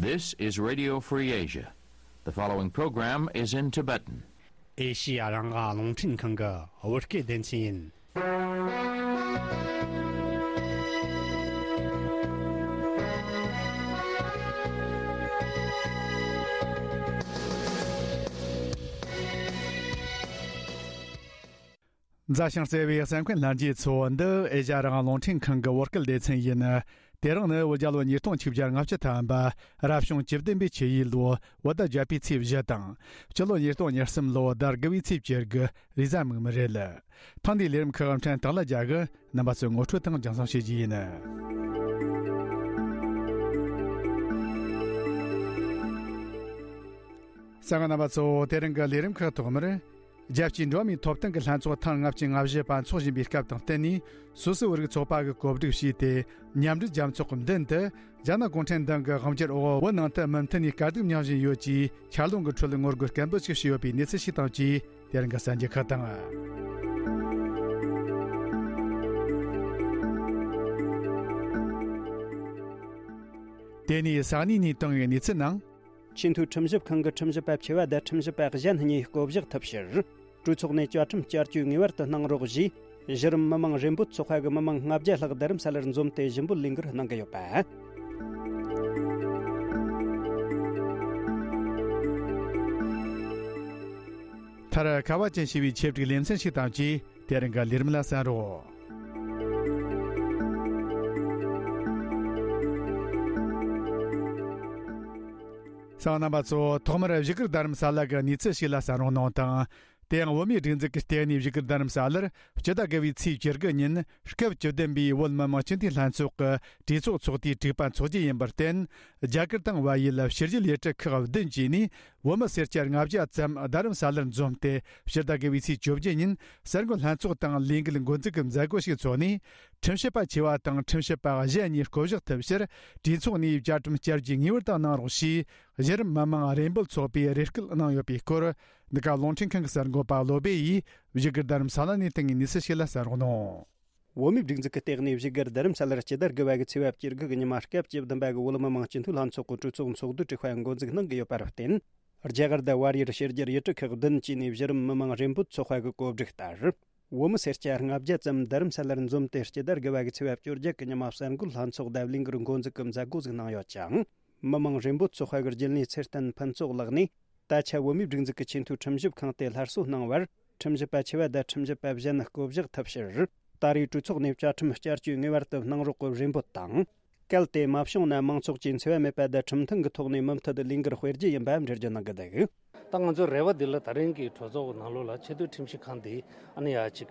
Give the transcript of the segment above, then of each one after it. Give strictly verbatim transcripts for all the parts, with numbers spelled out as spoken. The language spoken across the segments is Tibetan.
This is Radio Free Asia. The following program is in Tibetan. ཨེ་ཤི་ཡ་རང་དབང་རླུང་འཕྲིན་ཁང་གི་བོད་སྐད་སྡེ་ཚན་ཡིན། མཛའ་ཞིང་བརྩེ་བའི་གསན་མཁན་ལྷན་རྒྱས་ཚོ། འདི་ཨེ་ཤ་ཡ་རང་དབང་རླུང་འཕྲིན་ཁང་གི་བོད་སྐད་སྡེ་ཚན་ཡིན། དེ་རིང་ནི་བོད་རྒྱལ་ལོ་ཉིས་སྟོང་ཆིག་བརྒྱ་ལྔ་བཅུ་ཐམ་པ། རབ་བྱུང་བཅུ་བདུན་པའི་ཆུ་ཡོས་ལོ་བོད་ཟླ་བརྒྱད་པའི་ཚེས་བཞི་དང་། སྤྱི་ལོ་ཉིས་སྟོང་ཉེར་གསུམ་ལོ་ཟླ་དགུ་བའི་ཚེས་བཅུ་དགུ་རེས་གཟའ་མིག་དམར་རེད། ཐེངས་འདིའི་ལས་རིམ་ཁག་ཕྲན་སྟག་ལྷ་རྒྱལ་གྱིས་རྣམ་པ་ཚོའི་ངོ་སྤྲོད་དང་རྒྱང་སྲིང་བྱེད་རྒྱུ་ཡིན། གསན་མཁན་རྣམ་པ་ཚོ། དེ་རིང་གི་ལས་རིམ་ཁག་ཐོག་མར། རྒྱལ་སྤྱིའི་འགྲོ་བ་མིའི་ཐོབ་ཐང་གི་ལྷན་ཚོགས་ཐེངས་ལྔ་བཅུ་ང་བཞི་པ་འཚོགས་བཞིན་པའི་སྐབས་དང་བསྟུན་ནས། སུད་སི་བོད་རིགས་ཚོགས་པ་གིས་གོ་སྒྲིག་བྱས་ཏེ། མཉམ་འབྲེལ་རྒྱལ་ཚོགས་ཀྱི་མདུན་དུ། རྒྱ་ནག་གུང་ཁྲན་ཏང་གི་དབང་སྒྱུར་འོག་བོད་ནང་དུ་མུ་མཐུད་ནས་དཀའ་སྡུག་མྱངས་བཞིན་ཡོད་ཅེས་འཁྱར་ལོང་གི་ཁྲོད་ངོ་རྒོལ་སྐད་འབོད་ཅིག་བྱས་ཡོད་པའི་གནས་ཚུལ་ཞིག་དང་བཅས། དེ་རིང་གི་གསར་འགྱུར་ཁག་དང་། དེ་ནས་ས་གནས་ནས་བཏང་བའི་གནས་ཚུལ་ནང་། ཆེས་མཐོའི་ཁྲིམས་ཞིབ་ཁང་གི་ཁྲིམས་ཞིབ་པ་ཆེ་བ་དང་ཁྲིམས་ཞིབ་པ་གཞན་གཉིས་བསྐོ་གཞག་ཐུབ་ཕྱིར། གྲོས་ཚོགས་ནས་བཅའ་ཁྲིམས་བསྐྱར་བཅོས་ངེས་པར་དུ་གནང་རོགས་ཞེས། གཞི་རིམ་མི་མང་རེ་འབོད་ཚོགས་པ་གི་མི་མང་ལྔ་བརྒྱ་ལྷག་རྡ་རམ་ས་ལར་འཛོམས་ཏེ་ཞུ་འབོད་ལས་འགུལ་གནང་གི་ཡོད་པ། མཐར། ཁ་བ་ཅན་ཞེས་པའི་ཆེད་བསྒྲིགས་ལེ་ཚན་ཞིག་དང་བཅས། དེ་རིང་གི་ལས་རིམ་ལ་གསན་རོགས། གསན་མཁན་རྣམ་པ་ཚོ། ཐོག་མར་བཞུགས་སྒར་རྡ་རམ་ས་ལ་གི་གནས་ཚུལ་ཞིག་ལ་གསན་རོགས་གནང་དང་། དེ་ཡང་བོད་མིའི་སྒྲིག་འཛུགས་ཀྱི་ལྟེ་གནས་བཞུགས་སྒར་རྡ་རམ་ས་ལར་སྤྱི་ཟླ་དགུ་བའི་ཚེས་བཅུ་དགུ་ཉིན་སྐབས་བཅུ་བདུན་པའི་བོད་མི་མང་སྤྱི་འཐུས་ལྷན་ཚོགས་ཀྱི་གྲོས་ཚོགས་ཚོགས་དུས་དྲུག་པ་འཚོགས་རྒྱུ་ཡིན་པར་བརྟེན། རྒྱ་གར་དང་བལ་ཡུལ་ཕྱི་རྒྱལ་ཡུལ་གྲུ་ཁག་བདུན་བཅས་ནས་བོད་མི་སེར་སྐྱ་ལྔ་བརྒྱ་ཙམ་རྡ་རམ་ས་ལར་འཛོམས་ཏེ། སྤྱི་ཟླ་དགུ་བའི་ཚེས་བཅོ་བརྒྱད་ཉིན་གསར་འགོད་ལྷན་ཚོགས་དང་ལས་འགུལ་འགོ་འཛུགས་ཀྱི་མཛད་སྒོ་ཞིག་འཚོགས་ནས། ཁྲིམས་ཞིབ་པ་ཆེ་བ་དང་ཁྲིམས་ཞིབ་པ་གཞན་གཉིས་བསྐོ་གཞག་ཐུབ་ཕྱིར། གྲོས་ཚོགས་ནས་བཅའ་ཁྲིམས་བསྐྱར་བཅོས་ངེས་པར་དུ་གནང་རོགས་ཞེས། གཞི་རིམ་མི་མང་རེ་འབོད་ཚོགས་པས་རེ་སྐུལ་གནང་ཡོད་པའི་སྐོར། འདི་ག་རླུང་འཕྲིན་ཁང་གི་གསར་འགོད་པ་བློ་བྷེ་ཡིས་བཞུགས་སྒར་རྡ་རམ་ས་ལ་ནས་བཏང་བའི་གནས་ཚུལ་ཞིག་ལ་གསན་རོགས་གནང་། བོད་མིའི་སྒྲིག་འཛུགས་ཀྱི་ལྟེ་གནས་བཞུགས་སྒར་རྡ་རམ་ས་ལར་སྤྱི་ཟླ་དགུ་པ་གི་ཚེས་པ་བཅུ་དགུ་གི་ཉི་མ་སྐབས་བཅུ་བདུན་པ་གི་བོད་མི་མང་སྤྱི་འཐུས་ལྷན་ཚོགས་ཀྱི་གྲོས་ཚོགས་ཚོགས་འདུ་དྲུག་པ་འགོ་འཛུགས་གནང་གི་ཡོད་པར་བརྟེན། རྒྱ་གར་དང་བལ་ཡུལ་ཕྱི་རྒྱལ་ཡུལ་གྲུ་ཁག་བདུན་བཅས་ནས་གཞི་རིམ་མི་མང་རེ་འབོད་ཚོགས་པ་གི་གོ་སྒྲིག་ལྟར། བོད་མི་སེར་སྐྱ་ལྔ་བརྒྱ་ཙམ་རྡ་རམ་ས་ལར་འཛོམས་ཏེ། སྤྱི་ཟླ་དགུ་པ་གི་ཚེས་པ་བཅོ་བརྒྱད་གི་ཉི་མ་གསར་འགོད་ལྷན་ཚོགས་དང་ལས་འགུལ་འགོ་འཛུགས་ཀྱི་མཛད་སྒོ་ཞིག་གནང་ཡོད་ཅིང་། མི་མང་རེ་འབོད་ཚོགས་པ་གི་རྒྱུན་ལས་ཚེ་བརྟན་ཕུན་ཚོགས་ལགས་ནས། ད་ཆ་བོད་མིའི་སྒྲིག་འཛུགས་ཀྱི་ཆེས་མཐོའི་ཁྲིམས་ཞིབ་ཁང་དེ་སླར་གསོ་གནང་བར། ཁྲིམས་ཞིབ་པ་ཆེ་བ་དང་ཁྲིམས་ཞིབ་པ་གཞན་བསྐོ་གཞག་ཐུབ་ཕྱིར། ད་རེས་གྲོས་ཚོགས་ནས་བཅའ་ཁྲིམས་བསྐྱར་བཅོས་ངེས་པར་དུ་གནང་རོགས་ཀྱི་རེ་འབོད་དང་། གལ་ཏེ་མ་བྱུང་ན། མང་ཚོགས་ཀྱི་འཚེ་བ་མེད་པ་དང་ཁྲིམས་མཐུན་གྱི་ཐོག་ནས་མུ་མཐུད་དུ་ལས་འགུལ་སྤེལ་རྒྱུ་ཡིན་པ་འགྲེལ་བརྗོད་གནང་གི་འདུག། ད་ང་ཚོའི་རེ་བ་འདི་ལ། ད་རིང་གི་གྲོས་ཚོགས་ནང་ལོགས་ལ་ཆེས་མཐོའི་ཁྲིམས་ཞིབ་ཁང་འདི་ཨ་ནི་ཡ་གཅིག་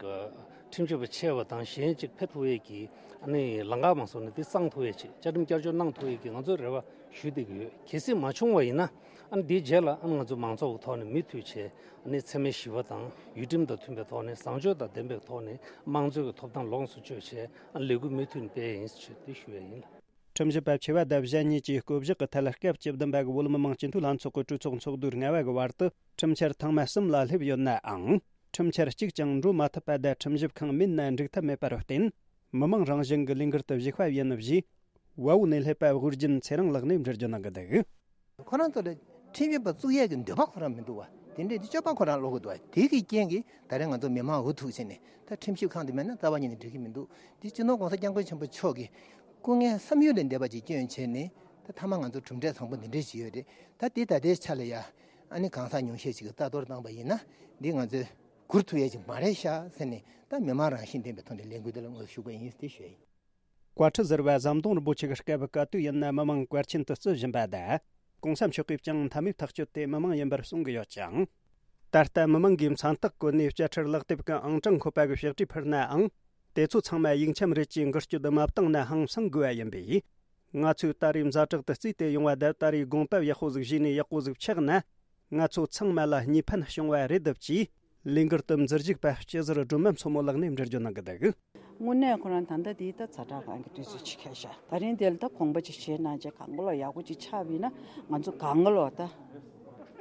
ཁྲིམས་ཞིབ་པ་ཆེ་བ་དང་གཞན་གཅིག་ཕེབས་ཐུབ་ཡས་ཀྱི་ཨ་ནི་ལམ་ཁ་མ་སོང་ན་འདི་གཙང་ཐུབ་ཡས་ཅིག། བཅའ་ཁྲིམས་བསྐྱར་བཅོས་གནང་ཐུབ་ཡས་ཀྱི་ང་ཚོས་རེ་བ་ཞུ་བསྡད་ཀྱི་ཡོད། གལ་སྲིད་མ་བྱུང་བ་ཡིན་ན། ཨ་ནི་འདིའི་རྗེས་ལ་ཨ་ནི་ང་ཚོ་མང་ཚོགས་ཀྱི་ཐོག་ནས་མུ་མཐུད་བྱས། ཨ་ནི་འཚེ་མེད་ཞི་བ་དང་ཡུལ་ཁྲིམས་དང་མཐུན་པའི་ཐོག་ནས། བཟང་སྤྱོད་དང་ལྡན་པའི་ཐོག་ནས་དམངས་གཙོའི་ཐོབ་ཐང་ལོངས་སུ་སྤྱོད་བྱས། ཨ་ནི་ལས་འགུལ་མུ་མཐུད་སྤེལ་ཡིན་ཞེས་དེ་ཞུ་ཡས་ཡིན། ཁྲིམས་ཞིབ་པ་ཆེ་བ་དང་གཞན་གཉིས་ཀྱིས་བསྐོ་གཞག་གི་ཐད། སྐབས་བཅུ་བདུན་པ་གི་བོད་མི་མང་སྤྱི་འཐུས་ལྷན་ཚོགས་ཀྱི་གྲོས་ཚོགས་ཚོགས་དུས་ལྔ་པ་གི་བར་དུ་ཁྲིམས་འཆར་ཐེངས་མ་གསུམ་ལ་སླེབས་ཡོད་ནའང་། ཁྲིམས་འཆར་གཅིག་ཀྱང་འགྲོ་མ་ཐུབ་པ་དང་། ཁྲིམས་ཞིབ་ཁང་མིན་ན་འགྲིག་ཐབས་མེད་པར་བརྟེན། མི་མང་རང་བཞིན་གྱི་ལས་འགུལ་དུ་ཞུགས་པ་ཡིན་ཞེས། བལ་པོ་ནས་སླེབས་པ་དབུ་རྒྱུན་ཚེ་རིང་ལགས་ནས་འགྲེལ་བརྗོད་གནང་གི་འདུག། ཁོ་རང་ཚོ་ལ་ཁྲིམས་ཞིབ་པ་བཙུགས་ཡས་ཀྱི་འདོད་པ་ཁོ་རང་མི་འདུག་བ། དེ་འདྲའི་སྤྱོད་པ་ཁོ་རང་ལོག་གི་འདུག་བ། དེ་གི་རྐྱེན་གྱིས་ད་རེས་ང་ཚོ་མི་མང་འུ་ཐུག་བྱས་ནས། ད་ཁྲིམས་ཞིབ་ཁང་དེ་མེད་ན་རྩ་བ་ཉིད་ནས་འགྲིག་གི་མི་འདུག། འདི་སྤྱི་ནོར་༸གོང་ས་༸སྐྱབས་མགོན་ཆེན་པོ་མཆོག་གིས་སྐུ་ངལ་བསམ་ཡུལ་ལས་འདས་པ་ཅིག་བསྐྱོན་བྱས་ནས། ད་མཐའ་མ་ང་ཚོ་གྲུབ་འབྲས་བཟང་པོ་འདི་འདྲས་ཅིག་ཡོད་རེད། ད་དེ་ད་ལྟའི་ཆ་ལ་ཡ། ཨ་ནི་གང་ཟག་ཉུང་ཤས་ཅིག་གིས་རྩ་གཏོར་བཏང་པ་ཡིན་ན། འདི་ང་ཚོས་བསྒུར་ཐུབ་ཡས་ཅིག་མ་རེད་ཤག་ཟེར་ནས། ད་མི་མང་རང་བཞིན་ལྡན་པའི་ཐོག་ནས་ལས་འགུལ་འདི་ལ་ངོ་ཤུགས་པ་ཡིན་ཟེར་ཞུ་ཡ་ཡིན། བཀའ་ཁྲི་ཟུར་པ་ཟམ་གདོང་རིན་པོ་ཆེ་གི་སྐབས་ག་དུས་ཡིན་ན་མི་མང་བཀའ་ཆེན་དུ་བརྩི་བཞིན་པ་དང་། ༸གོང་ས་མཆོག་གིས་ཀྱང་མཐའ་མའི་ཐག་གཅོད་དེ་མི་མང་ཡིན་པར་གསུང་གི་ཡོད་ཅིང་། ད་ལྟ་མི་མང་གིས་མཚན་རྟགས་བཀོད་ནས་བཅད་ཁྲིར་ལག་དེབ་ཀྱི་ཨང་གྲངས་འཁོད་པ་གི་ཕྱག་བྲིས་ཕུལ་ནའང་། དེ་ཚོ་ཚང་མ་ཡིག་ཆ་རེད་ཅེས་འགུལ་སྐྱོད་མ་བཏང་ན་ཧང་སང་དགོས་པ་ཡིན་པས། ང་ཚོས་ད་རེས་ཛ་དྲག་ཏུ་བརྩིས་ཏེ་ཡོང་བ་དང་། ད་རེས་དགོངས་པ་ཡག་པོ་ཟིག་བཞེས་ནས་ཡག་པོ་ཟིག་ཆགས་ན། ང་ཚོ་ཚང་མ་ལ་གཉིས་ཕན་བྱུང་བ་རེད་འདུག་ཅེས། ལས་འགུལ་དུ་འཛུལ་བཞུགས་པ་སྤྱི་ཟུར་སྒྲོལ་མ་མཚོ་མོ་ལགས་ནས་འགྲེལ་བརྗོད་གནང་གི་འདུག། དངོས་གནས་ཁོ་རང་ད་ལྟ་དེའི་ད་ཛ་དྲག་སྒང་གི་དུས་ཚོད་ཅིག་ཁེལ་ཤག། ད་རིང་དེ་ལ་ད་དགོངས་པ་ཅིག་བཞེས་གནང་བྱས། གང་ག་ལོག་ཡག་པོ་ཅིག་ཆགས་པ་ཡིན་ན། ང་ཚོ་གང་ག་ལོག་ད་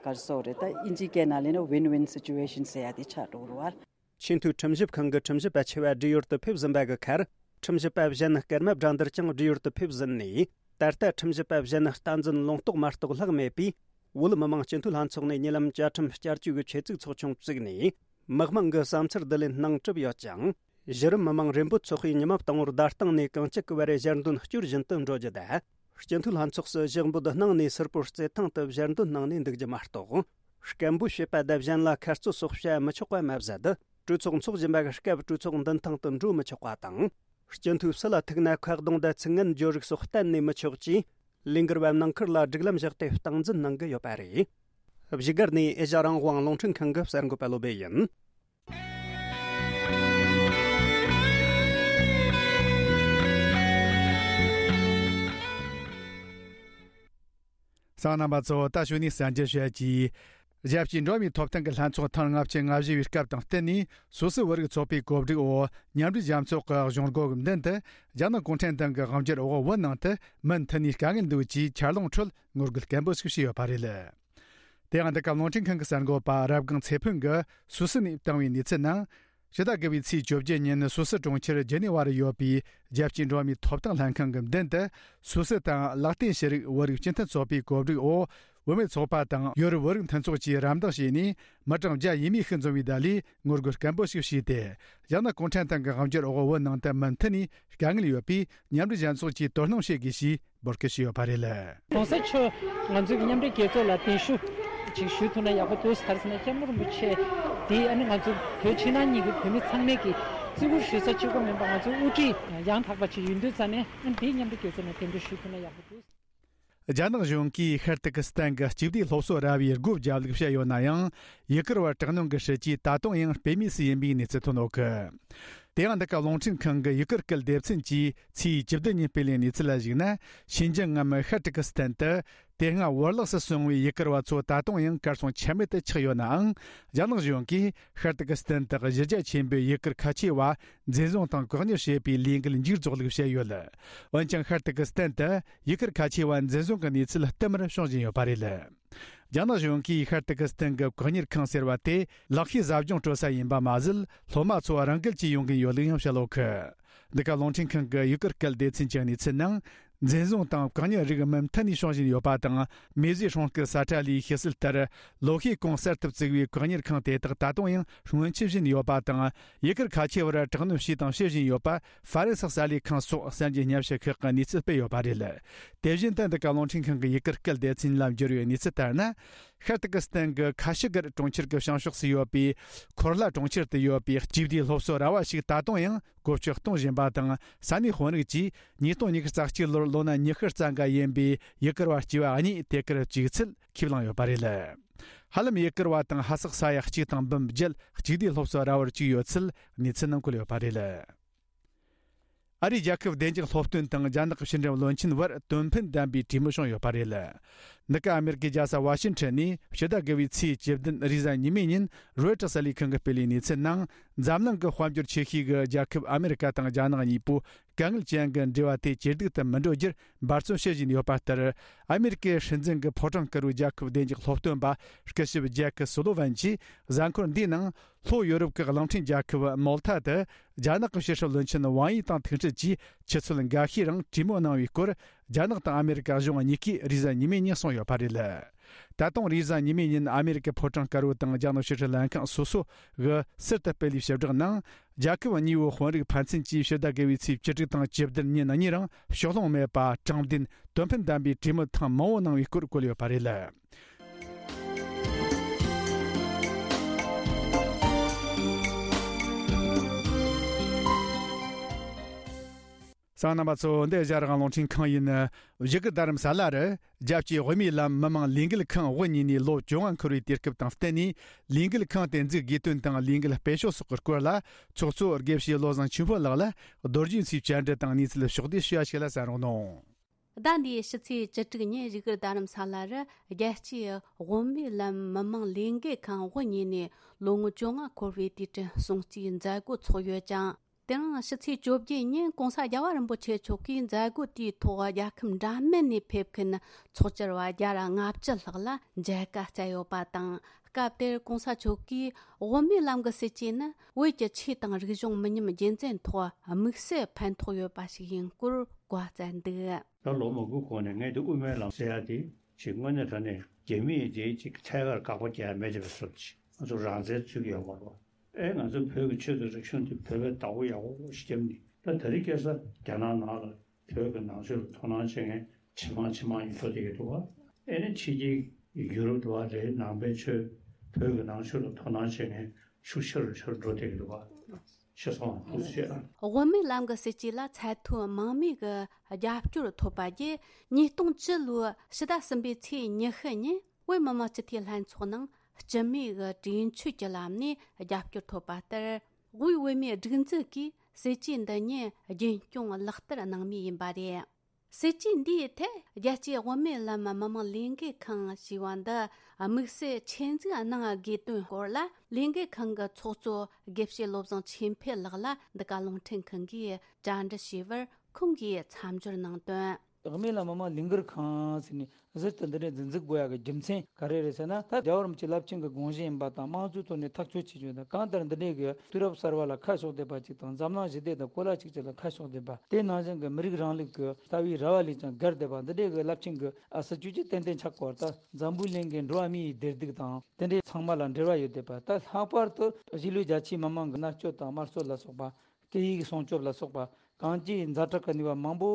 ག་རེ་ཟེར་དགོས་རེད། ད་དབྱིན་ཇིའི་སྐད་ནང་ལབ་ན་win-win situation ཟེར་ཡ་དེ་ཆགས་འགྲོ་གི་རེད་བ། ཆེས་མཐོའི་ཁྲིམས་ཞིབ་ཁང་གི་ཁྲིམས་ཞིབ་པ་ཆེ་བ་བགྲེས་ཡོལ་དུ་ཕེབས་ཟིན་པ་གི་ཁར། ཁྲིམས་ཞིབ་པ་གཞན་སྐར་མ་བགྲང་འདིར་ཀྱང་བགྲེས་ཡོལ་དུ་ཕེབས་ཟིན་ནས། ད་ལྟ་ཁྲིམས་ཞིབ་པ་གཞན་བསྟན་འཛིན་ལུང་རྟོགས་མ་གཏོགས་ལྷག་མེད་པས། བོད་མི་མང་སྤྱི་འཐུས་ལྷན་ཚོགས་ནས་ཉེ་ལམ་བཅའ་ཁྲིམས་བསྐྱར་བཅོས་ཀྱི་ཆེད་བཙུགས་ཚོགས་ཆུང་བཙུགས་ནས། མི་མང་གི་བསམ་འཆར་བསྡུ་ལེན་གནང་གྲུབ་ཡོད་ཅིང་། གཞི་རིམ་མི་མང་རེ་འབོད་ཚོགས་པས་ཉི་མ་དང་པོར་བརྡ་སྟེང་ནས་གང་ཅི་གི་བར་ཞལ་འདོན་སྐྱོར་བཞིན་དུ་འགྲོ་རྒྱུ་དང་། སྤྱི་འཐུས་ལྷན་ཚོགས་སུ་ཞུགས་འབོད་གནང་ནས་སིལ་པོར་རྩེད་ཐང་དུ་ཞལ་འདོན་གནང་ནས་འདུག་རྒྱུ་མ་གཏོགས། སྐད་འབོད་བྱེད་པ་དང་གཞན་ལ་ཁ་རྩོད་སོགས་བྱ་མི་ཆོག་པ་མ་ཟད། གྲོས་ཚོགས་འཚོགས་བཞིན་པའི་སྐབས་གྲོས་ཚོགས་མདུན་ཐང་དུ་འགྲོ་མི་ཆོག་པ་དང་། སྤྱི་འཐུས་ཕྱི་ལ་ཐུག་ན་ཁ་གདོང་དང་ཚིག་ངན་བརྗོད་རིགས་སོགས་གཏན་ནས་མི་ཆོག་ཅེས། ལས་འགུལ་བ་ནང་ཁུལ་ལ་སྒྲིག་ལམ་བཞག་སྟེ་སྟངས་འཛིན་གནང་གི་ཡོད་པ་རེད། བཞུགས་སྒར་ནས་ཨེ་ཤ་རང་དབང་རླུང་འཕྲིན་ཁང་གི་གསར་འགོད་པ་བློ་བྷེ་ཡིན། གསན་མཁན་རྣམ་པ་ཚོ། ད་གཞུག་ནས་གསར་འགྱུར་བཤད་ཀྱིས། རྒྱལ་སྤྱིའི་འགྲོ་བ་མིའི་ཐོབ་ཐང་གི་ལྷན་ཚོགས་ཐེངས་ལྔ་བཅུ་ང་བཞི་བའི་སྐབས་དང་བསྟུན་ནས། སུད་སི་བོད་རིགས་ཚོགས་པའི་གོ་སྒྲིག་འོག་མཉམ་འབྲེལ་རྒྱལ་ཚོགས་ཀྱི་གཞུང་སྒོ་གི་མདུན་དུ། རྒྱ་ནག་གུང་ཁྲན་ཏང་གི་དབང་སྒྱུར་འོག་བོད་ནང་དུ་མུ་མཐུད་ནས་དཀའ་ངལ་འདུག་ཅེས་འཆར་ལོངས་ཁྲོད་ངོ་རྒོལ་སྐད་འབོད་ཞིག་བྱས་ཡོད་པ་རེད། དེ་ཡང་འདི་ག་རླུང་འཕྲིན་ཁང་གི་གསར་འགོད་པ་རབ་སྒང་ཚེ་ཕུན་གྱིས་སུད་སི་ནས་བཏང་བའི་གནས་ཚུལ་ནང་། ཕྱི་ཟླ་དགུ་པའི་ཚེས་བཅོ་བརྒྱད་ཉིན་སུད་སི་གྲོང་ཁྱེར་ཇི་ནི་ཝ་རུ་ཡོད་པའི་རྒྱལ་སྤྱིའི་འགྲོ་བ་མིའི་ཐོབ་ཐང་ལྷན་ཁང་གི་མདུན་དུ། སུད་སི་དང་ལེག་ཏེན་ཤི་རིགས་བོད་རིགས་སྤྱི་མཐུན་ཚོགས་པའི་གོ་སྒྲིག་འོག་བུད་མེད་ཚོགས་པ་དང་ཡོ་རོབ་བོད་རིགས་མཐུན་ཚོགས་ཀྱིས་རམ་འདེགས་བྱས་ནས། མི་གྲངས་བརྒྱ་ཡས་མས་ཤིག་འཛོམས་པའི་བརྡ་ལས་ངོ་རྒོལ་སྐད་འབོད་ཞིག་བྱས་ཏེ། རྒྱ་ནག་གུང་ཁྲན་ཏང་གི་དབང་སྒྱུར་འོག་བོད་ནང་དུ་མུ་མཐུད་ནས་དཀའ་ངལ་ཡོད་པས། མཉམ་འབྲེལ་རྒྱལ་ཚོགས་ཀྱིས་དོ་སྣང་བྱེད་དགོས་ཞེས་འབོད་སྐུལ་ཞུས་ཡོད་པ་རེད། གོང་ས་མཆོག་ང་ཚོའི་མཉམ་འབྲེལ་རྒྱལ་ཚོགས་ལ་གདན་ཞུ་ཅིག་ཞུ་ཐུབ་ན་ཡག་པོ་འདུག་ག་རེ་ཟེར་ན། སྐྱབས་མགོན་རིན་པོ་ཆེ་འདི་ཨ་ནི་ང་ཚོ་བོད་ཕྱི་ནང་གཉིས་ཀྱི་བོད་མི་ཚང་མས་ཀྱི་བརྩི་བཀུར་ཞུ་ས་གཅིག་པོ་མིན་པ། ང་ཚོའི་དབུ་ཁྲིད་ཡང་དག་པ་ཅིག་ཡིན་དུས་ཙང་ནས། ཨ་ནི་འདི་མཉམ་འབྲེལ་རྒྱལ་ཚོགས་ནས་གདན་འདྲེན་ཞུ་ཐུབ་ན་ཡག་པོ་འདུག་རྒྱ་ནག་གཞུང་གིས་ཤར་ཏུར་ཀི་སི་ཐན་གྱི་གཅིག་སྡུད་སློབ་གསོ་ར་བའི་སྒོ་བརྒྱབ་ལུགས་བཤད་ཡོད་ན་ཡང་། ཡུ་གུར་བ་དྲག་གནོན་གྱི་སྲིད་ཇུས་ད་དུང་ཡང་དཔེ་མེད་སུ་ཡིན་པའི་གནས་ཚུལ་ཐོན་ཡོད་གི། དེ་ཡང་འདི་ག་རླུང་འཕྲིན་ཁང་གི་ཡུ་གུར་སྐད་སྡེ་ཚན་གྱིས་ཚེས་བཅུ་བདུན་ཉིན་སྤེལ་བའི་གནས་ཚུལ་ལ་གཞིགས་ན། ཕྱི་ཉིན་ངམ་ཤར་ཏུར་ཀི་སི་ཐན་དུ་དེ་སྔ་བོར་བརླག་སུ་སོང་བའི་ཡུ་གུར་བ་ཚོ་ད་དུང་ཡང་གར་སོང་ཆ་མེད་དུ་ཆགས་ཡོད་ནའང་། རྒྱ་ནག་གཞུང་གིས་ཤར་ཏུར་ཀི་སི་ཐན་དུ་གཞི་རྒྱ་ཆེན་པོའི་ཡུ་གུར་ཁ་ཆེ་བ་འཛིན་བཟུང་དང་བཀག་ཉར་བྱེད་པའི་ལས་འགུལ་མཇུག་རྫོགས་ལུགས་བཤད་ཡོད། འོན་ཀྱང་ཤར་ཏུར་ཀི་སི་ཐན་དུ་ཡུ་གུར་ཁ་ཆེ་བ་འཛིན་བཟུང་གི་གནས་ཚུལ་བསྟུད་མར་བྱུང་བཞིན་ཡོད་པ་རེད། རྒྱ་ནག་གཞུང་གིས་ཤར་ཏུར་ཀི་སི་ཐན་གྱི་བཀག་ཉར་ཁང་ཟེར་བ་དེ་ལག་ཤེས་ཟབ་སྦྱོང་སྤྲོད་ས་ཡིན་པ་མ་ཟད། སློབ་མ་ཚོ་རང་འགུལ་གྱིས་ཡོང་གིན་ཡོད་ལུགས་ཡང་བཤད་ཡོད་གི། འདི་ག་རླུང་འཕྲིན་ཁང་གི་ཡུ་གུར་སྐད་སྡེ་ཚན་གྱི་གནས་ཚུལ་ནང་། འཛིན་བཟུང་དང་བཀག་ཉར་རིགས་མུ་མཐུད་ནས་བྱུང་བཞིན་ཡོད་པ་དང་། མེ་ཟོའི་སྲུང་སྐུལ་ས་ཁྲ་ལས་ཤེས་གསལ་ལྟར། ལོ་ཤས་གོང་གསར་དུ་བཙུགས་པའི་བཀག་ཉར་ཁང་དེ་དག་ད་དུང་ཡང་སྔོན་ཆད་བཞིན་ཡོད་པ་དང་། ཡུ་གུར་ཁ་ཆེ་བར་དྲག་གནོན་བྱས་དང་བྱེད་བཞིན་ཡོད་པ། ཧྥ་རན་སི་གསར་ལས་ཁང་སོགས་གསར་འགྱུར་སྙན་ཞུ་ཁག་གིས་གནས་ཚུལ་སྤེལ་ཡོད་པ་རེད། དེ་བཞིན་དུ་འདི་ག་རླུང་འཕྲིན་ཁང་གི་ཡུ་གུར་སྐད་སྡེ་ཚན་ལ་འབྱོར་བའི་གནས་ཚུལ་ལྟར་ན། ཤར་ཏུར་ཀི་སི་ཐན་གྱི་ཁ་ཤི་གར་གྲོང་ཁྱེར་གྱི་བྱང་ཕྱོགས་སུ་ཡོད་པའི་ཁོར་ལ་གྲོང་ཁྱེར་དུ་ཡོད་པའི་གཅིག་སྡུད་སློབ་གསོ་ར་བ་ཞིག་ད་དུང་ཡང་བཀོལ་སྤྱོད་གཏོང་བཞིན་པ་དང་། ས་གནས་དཔོན་རིགས་ཀྱིས་ཉིས་སྟོང་ཉི་ཤུ་རྩ་གཅིག་ལོར་ལོ་ན་ཉི་ཤུ་རྩ་འགའ་ཡིན་པའི་ཡུ་གུར་བ་སྐྱེས་པ་གཉིས་དེ་གར་བཅུག་ཚུལ་ཁས་བླངས་ཡོད་པ་རེད། ཧ་ལམ་ཡུ་གུར་བ་དང་ཧ་སག་ས་ཡ་གཅིག་དང་འབུམ་བརྒྱད་གཅིག་སྡུད་སློབ་གསོ་ར་བར་བཅུག་ཡོད་ཚུལ་གནས་ཚུལ་ནང་བཀོད་ཡོད་པ་རེད། ཨ་རིའི་རྒྱལ་ཁབ་བདེ་འཇགས་སློབ་སྟོན་དང་རྒྱ་ནག་གི་ཕྱི་འབྲེལ་བློན་ཆེན་བར་དོན་ཕན་ལྡན་པའི་གྲོས་མོལ་བྱུང་ཡོད་པ་རེད། འདི་ག་ཨ་མེ་རི་ཀའི་རྒྱལ་ས་ཝ་ཤིང་ཊོན་ནས་ཕྱི་ཟླ་དགུ་པའི་ཚེས་བཅུ་བདུན་རེས་གཟའ་ཉི་མའི་ཉིན་རོའི་ཊར་གསར་ལས་ཁང་གིས་སྤེལ་བའི་གནས་ཚུལ་ནང་། འཛམ་གླིང་གི་དཔལ་འབྱོར་ཆེ་ཤོས་ཀྱི་རྒྱལ་ཁབ་ཨ་མེ་རི་ཀ་དང་རྒྱ་ནག་གཉིས་པོ་དཀའ་ངལ་ཅན་གྱི་འབྲེལ་བ་དེ་ཇེ་སྡུག་ཏུ་མི་འགྲོ་རྒྱུར་འབད་བརྩོན་བྱེད་བཞིན་ཡོད་པ་ལྟར། ཨ་མེ་རི་ཀའི་སྲིད་འཛིན་གྱི་ཕོ་བྲང་དཀར་པོའི་རྒྱལ་ཁབ་བདེ་འཇགས་སློབ་སྟོན་པ་སྐུ་ཞབས་ཇེག་སུ་ལོ་ཝན་གྱིས་གཟའ་འཁོར་འདིའི་ནང་། ལྷོ་ཡོ་རོབ་ཀྱི་གླིང་ཕྲན་རྒྱལ་ཁབ་མོལ་ཐ་དུ་རྒྱ་ནག་གི་ཕྱི་སྲིད་བློན་ཆེན་ཝང་ཡི་དང་ཐུག་འཕྲད་ཀྱིས་ཆུ་ཚོད་འགའ་ཤས་རིང་གྲོས་མོལ་གནང་བའི་སྐོར། རྒྱ་ནག་དང་ཨ་མེ་རི་ཀ་གཞུང་གཉིས་ཀས་རེས་གཟའ་ཉི་མའི་ཉིན་གསུངས་ཡོད་པ་རེད། ད་དུང་རེས་གཟའ་ཉི་མའི་ཉིན་ཨ་མེ་རི་ཀའི་ཕོ་བྲང་དཀར་པོ་དང་རྒྱ་ནག་ཕྱི་སྲིད་ལྷན་ཁང་སོ་སོ་གིས་ཟུར་དུ་སྤེལ་བའི་ཞིབ་བསྒྲགས་ནང་། རྒྱལ་ཁབ་གཉིས་པོའི་དཔོན་རིགས་ཕན་ཚུན་གྱིས་ཕྱི་ཟླ་དགུ་པའི་ཚེས་བཅུ་དྲུག་དང་བཅུ་བདུན་ཉིན་གཉིས་རིང་ཕྱོགས་ལྷུང་མེད་པ་དྲང་བདེན་དོན་ཕན་ལྡན་པའི་གྲོས་མོལ་ཐེངས་མང་པོ་གནང་བའི་སྐོར་བཀོད་ཡོད་པ་རེད། གསན་མཁན་རྣམ་པ་ཚོ། འདི་ཨེ་ཤ་ཡ་རང་དབང་རླུང་འཕྲིན་ཁང་ཡིན། བཞུགས་སྒར་རྡ་རམ་ས་ལ་རུ་རྒྱལ་སྤྱིའི་དབུ་མའི་ལམ་མི་མང་ལས་འགུལ་ཁང་དབུ་བརྙེས་ནས་ལོ་བཅོ་ལྔ་འཁོར་བའི་དུས་སྐབས་དང་བསྟུན་ནས། ལས་འགུལ་ཁང་དེ་འཛུགས་དགོས་དོན་དང་ལས་འགུལ་སྤེལ་ཕྱོགས་སོགས་ཀྱི་སྐོར་ལ། ཚོགས་གཙོ་དགེ་བཤེས་བློ་བཟང་ཆོས་འཕེལ་ལགས་ལ་རྡོ་རྗེ་མཚོའི་བཅར་འདྲི་དང་གནས་ཚུལ་ཕྱོགས་བསྡུས་ཞུ་བ་ཞིག་ལ་གསན་རོགས་གནང་། ཟླ་འདིའི་ཕྱི་ཚེས་བཅུ་དྲུག་ཉིན་བཞུགས་སྒར་རྡ་རམ་ས་ལ་རུ་རྒྱལ་སྤྱིའི་དབུ་མའི་ལམ་མི་མང་ལས་འགུལ་ཁང་དབུ་བརྙེས་ནས་ལོ་ངོ་བཅོ་ལྔ་འཁོར་བའི་དུས་དྲན་སྲུང་བརྩིའི་མཛད་སྒོ་ཚོགས་ཡོད་ཅིང་། དེ་རིང་ཕྱི་ཚེས་བཅོ་བརྒྱད་ཉིན་གོང་ས་རྒྱལ་བ་རིན་པོ་ཆེ་མཆོག་གིས་མཛད་སྒོ་དེའི་ཐོག་རྒྱལ་ཁབ་འདྲ་མིན་ནས་ཕེབས་མཁན་ཚོགས་བཅར་བ་བརྒྱ་དང་ལྔ་བཅུ་ལྷག་ལ་མཇལ་ཁ་བསྩལ་ཡོད་པ་དང་། སྐབས་དེར་གོང་ས་མཆོག་གིས་དབུ་མའི་ལམ་གྱི་སྲིད་བྱུས་ནི་བོད་ཀྱི་ཆོས་དང་རིག་གཞུང་མི་ཉམས་རྒྱུན་འཛིན་ཐོག་དམིགས་བསལ་ཕན་ཐོགས་ཡོད་པ་ཞིག་ཡིན་སྐོར་བཀའ་སྩལ་འདུག། ད་ལོ་མང་པོའི་གོང་ནས་ངས་འདི་དབུ་མའི་ལམ་ཟེར་ཡ་དེ་ཅིག་དངོས་གནས་དྲང་གནས་རྒྱ་མིས་དེ་ཅིག་ཐད་ཀར་དགག་པ་རྒྱག་ཡ་མེད་དེ་བས་སོ། ཅིག་ང་ཚོ་རང་བཙན་རྩོད་ཀྱི་ཡོད་མ་རེད་བ། ཨེ་ང་ཚོ་བོད་ཀྱི་ཆོས་དང་རིག་གཞུང་དེ་བོད་པས་བདག་པོ་ཡག་པོ་ཞིག་བརྒྱབ་ནས། ད་ད་རེས་ཁ་སང་རྒྱ་ནག་ནང་ལ་བོད་ཀྱི་ནང་ཆོས་ལ་དོ་སྣང་བྱེད་མཁན་ཇེ་མང་ཇེ་མང་ཡིན་འགྲོ་བསྡད་ཀྱི་འདུག་བ། ཨེ་ནི་ཕྱི་རྒྱལ་ཡུ་རོབ་དུ་བ་རེད། ནང་པའི་ཆོས་བོད་ཀྱི་ནང་ཆོས་ལ་དོ་སྣང་བྱེད་མཁན་ཤུགས་ཆེ་རུ་ཆེ་རུ་འགྲོ་བསྡད་ཀྱི་འདུག་བ། ཤེས་སོང་། ཐུགས་རྗེ་ཆེ། དབུ་མའི་ལམ་གྱི་སྲིད་ཇུས་ལ་ཚད་མཐོའི་མང་མོས་ཀྱི་རྒྱབ་སྐྱོར་ཐོབ་པ་བརྒྱུད། ཉིས་སྟོང་བཅུ་ལོའི་ཕྱི་ཟླ་གསུམ་པའི་ཚེས་ཉི་ཤུ་ཉིན་བོད་མི་མང་སྤྱི་འཐུས་ལྷན་ཚོགས་ནང་སྤྱི་མོས་ཀྱི་གྲོས་ཆོད་ཀྱི་ལམ་ནས་རྒྱབ་སྐྱོར་ཐོབ་པ་ལྟར། དབུས་བོད་མིའི་སྒྲིག་འཛུགས་ཀྱིས་སྲིད་ཇུས་འདི་ཉིད་རྒྱུན་སྐྱོང་ལག་བསྟར་གནང་མུས་ཡིན་པ་རེད། སྲིད་ཇུས་འདིའི་ཐད་རྒྱལ་སྤྱིའི་དབུ་མའི་ལམ་མི་མང་ལས་འགུལ་ཁང་ཞེས་པ་འདི་དམིགས་བསལ་ཆེད་འཛུགས་གནང་དགོས་དོན་སྐོར་ལ། ལས་འགུལ་ཁང་གི་ཚོགས་གཙོ་དགེ་བཤེས་བློ་བཟང་ཆོས་འཕེལ་ལགས་ལ་འདི་ག་རླུང་འཕྲིན་ཁང་གིས་བཅར་འདྲི་ཞུས་པར། ཁོང་གིས་མཚམས་སྦྱོར་གནང་དོན། དབུ་མའི་ལམ་མི་མང་ལས་འགུལ་ཁང་ཟེར་ནས་ཟུར་དུ་འདི་འདྲའི་འཛིན་འཛུགས་དགོས་ཡག་གི་རྒྱུ་མཚན་ག་རེ་རེད་ཟེར་ན། ད་རྒྱལ་བ་རིན་པོ་ཆེ་རླབས་ཆེན་གྱི་དགོངས་གཞི་ཡིན་པ་དང་། དམངས་གཙོའི་ཐོག་ནས་ཐག་གཅོད་བྱེད་རྒྱུ་དང་། གང་ལྟར་འདི་འདྲའི་གི་དུས་རབས་གསར་བ་ལ་ཁ་ཕྱོགས་བསྡད་པ་ཅིག་དང་། འཛམ་གླིང་ཞི་བདེ་དང་གོ་ལ་གཅིག་གྱུར་ལ་ཁ་ཕྱོགས་བསྡད་པ། དེ་ནང་བཞིན་གྱི་མི་རིགས་རིང་ལུགས་ཀྱི་ལྟ་བའི་ར་བ་ལས་ཀྱང་བརྒལ་བསྡད་པ། འདི་འདྲའི་གི་རླབས་ཆེན་གྱི་ཨ་སྲིད་ཇུས་ཅིག་ཏན་ཏན་ཆགས་དགོས་པ། ད་འཛམ་བུའི་གླིང་གི་འགྲོ་བ་མིའི་བདེ་སྡུག་དང་། དེ་འདྲའི་ཚང་མ་ལ་འབྲེལ་བ་ཡོད་བསྡད་པ། ད་ལྷག་པར་དུ་གཞིས་ལུས་རྒྱ་ཆེའི་མི་མང་གི་མནར་གཅོད་དང་དམར་གསོད་ལ་སོགས་པ། སྐད་ཡིག་སྲུང་སྐྱོབ་ལ་སོགས་པ། གང་ཅིའི་ཛ་དྲག་གི་ནུས་པ་མང་པོ་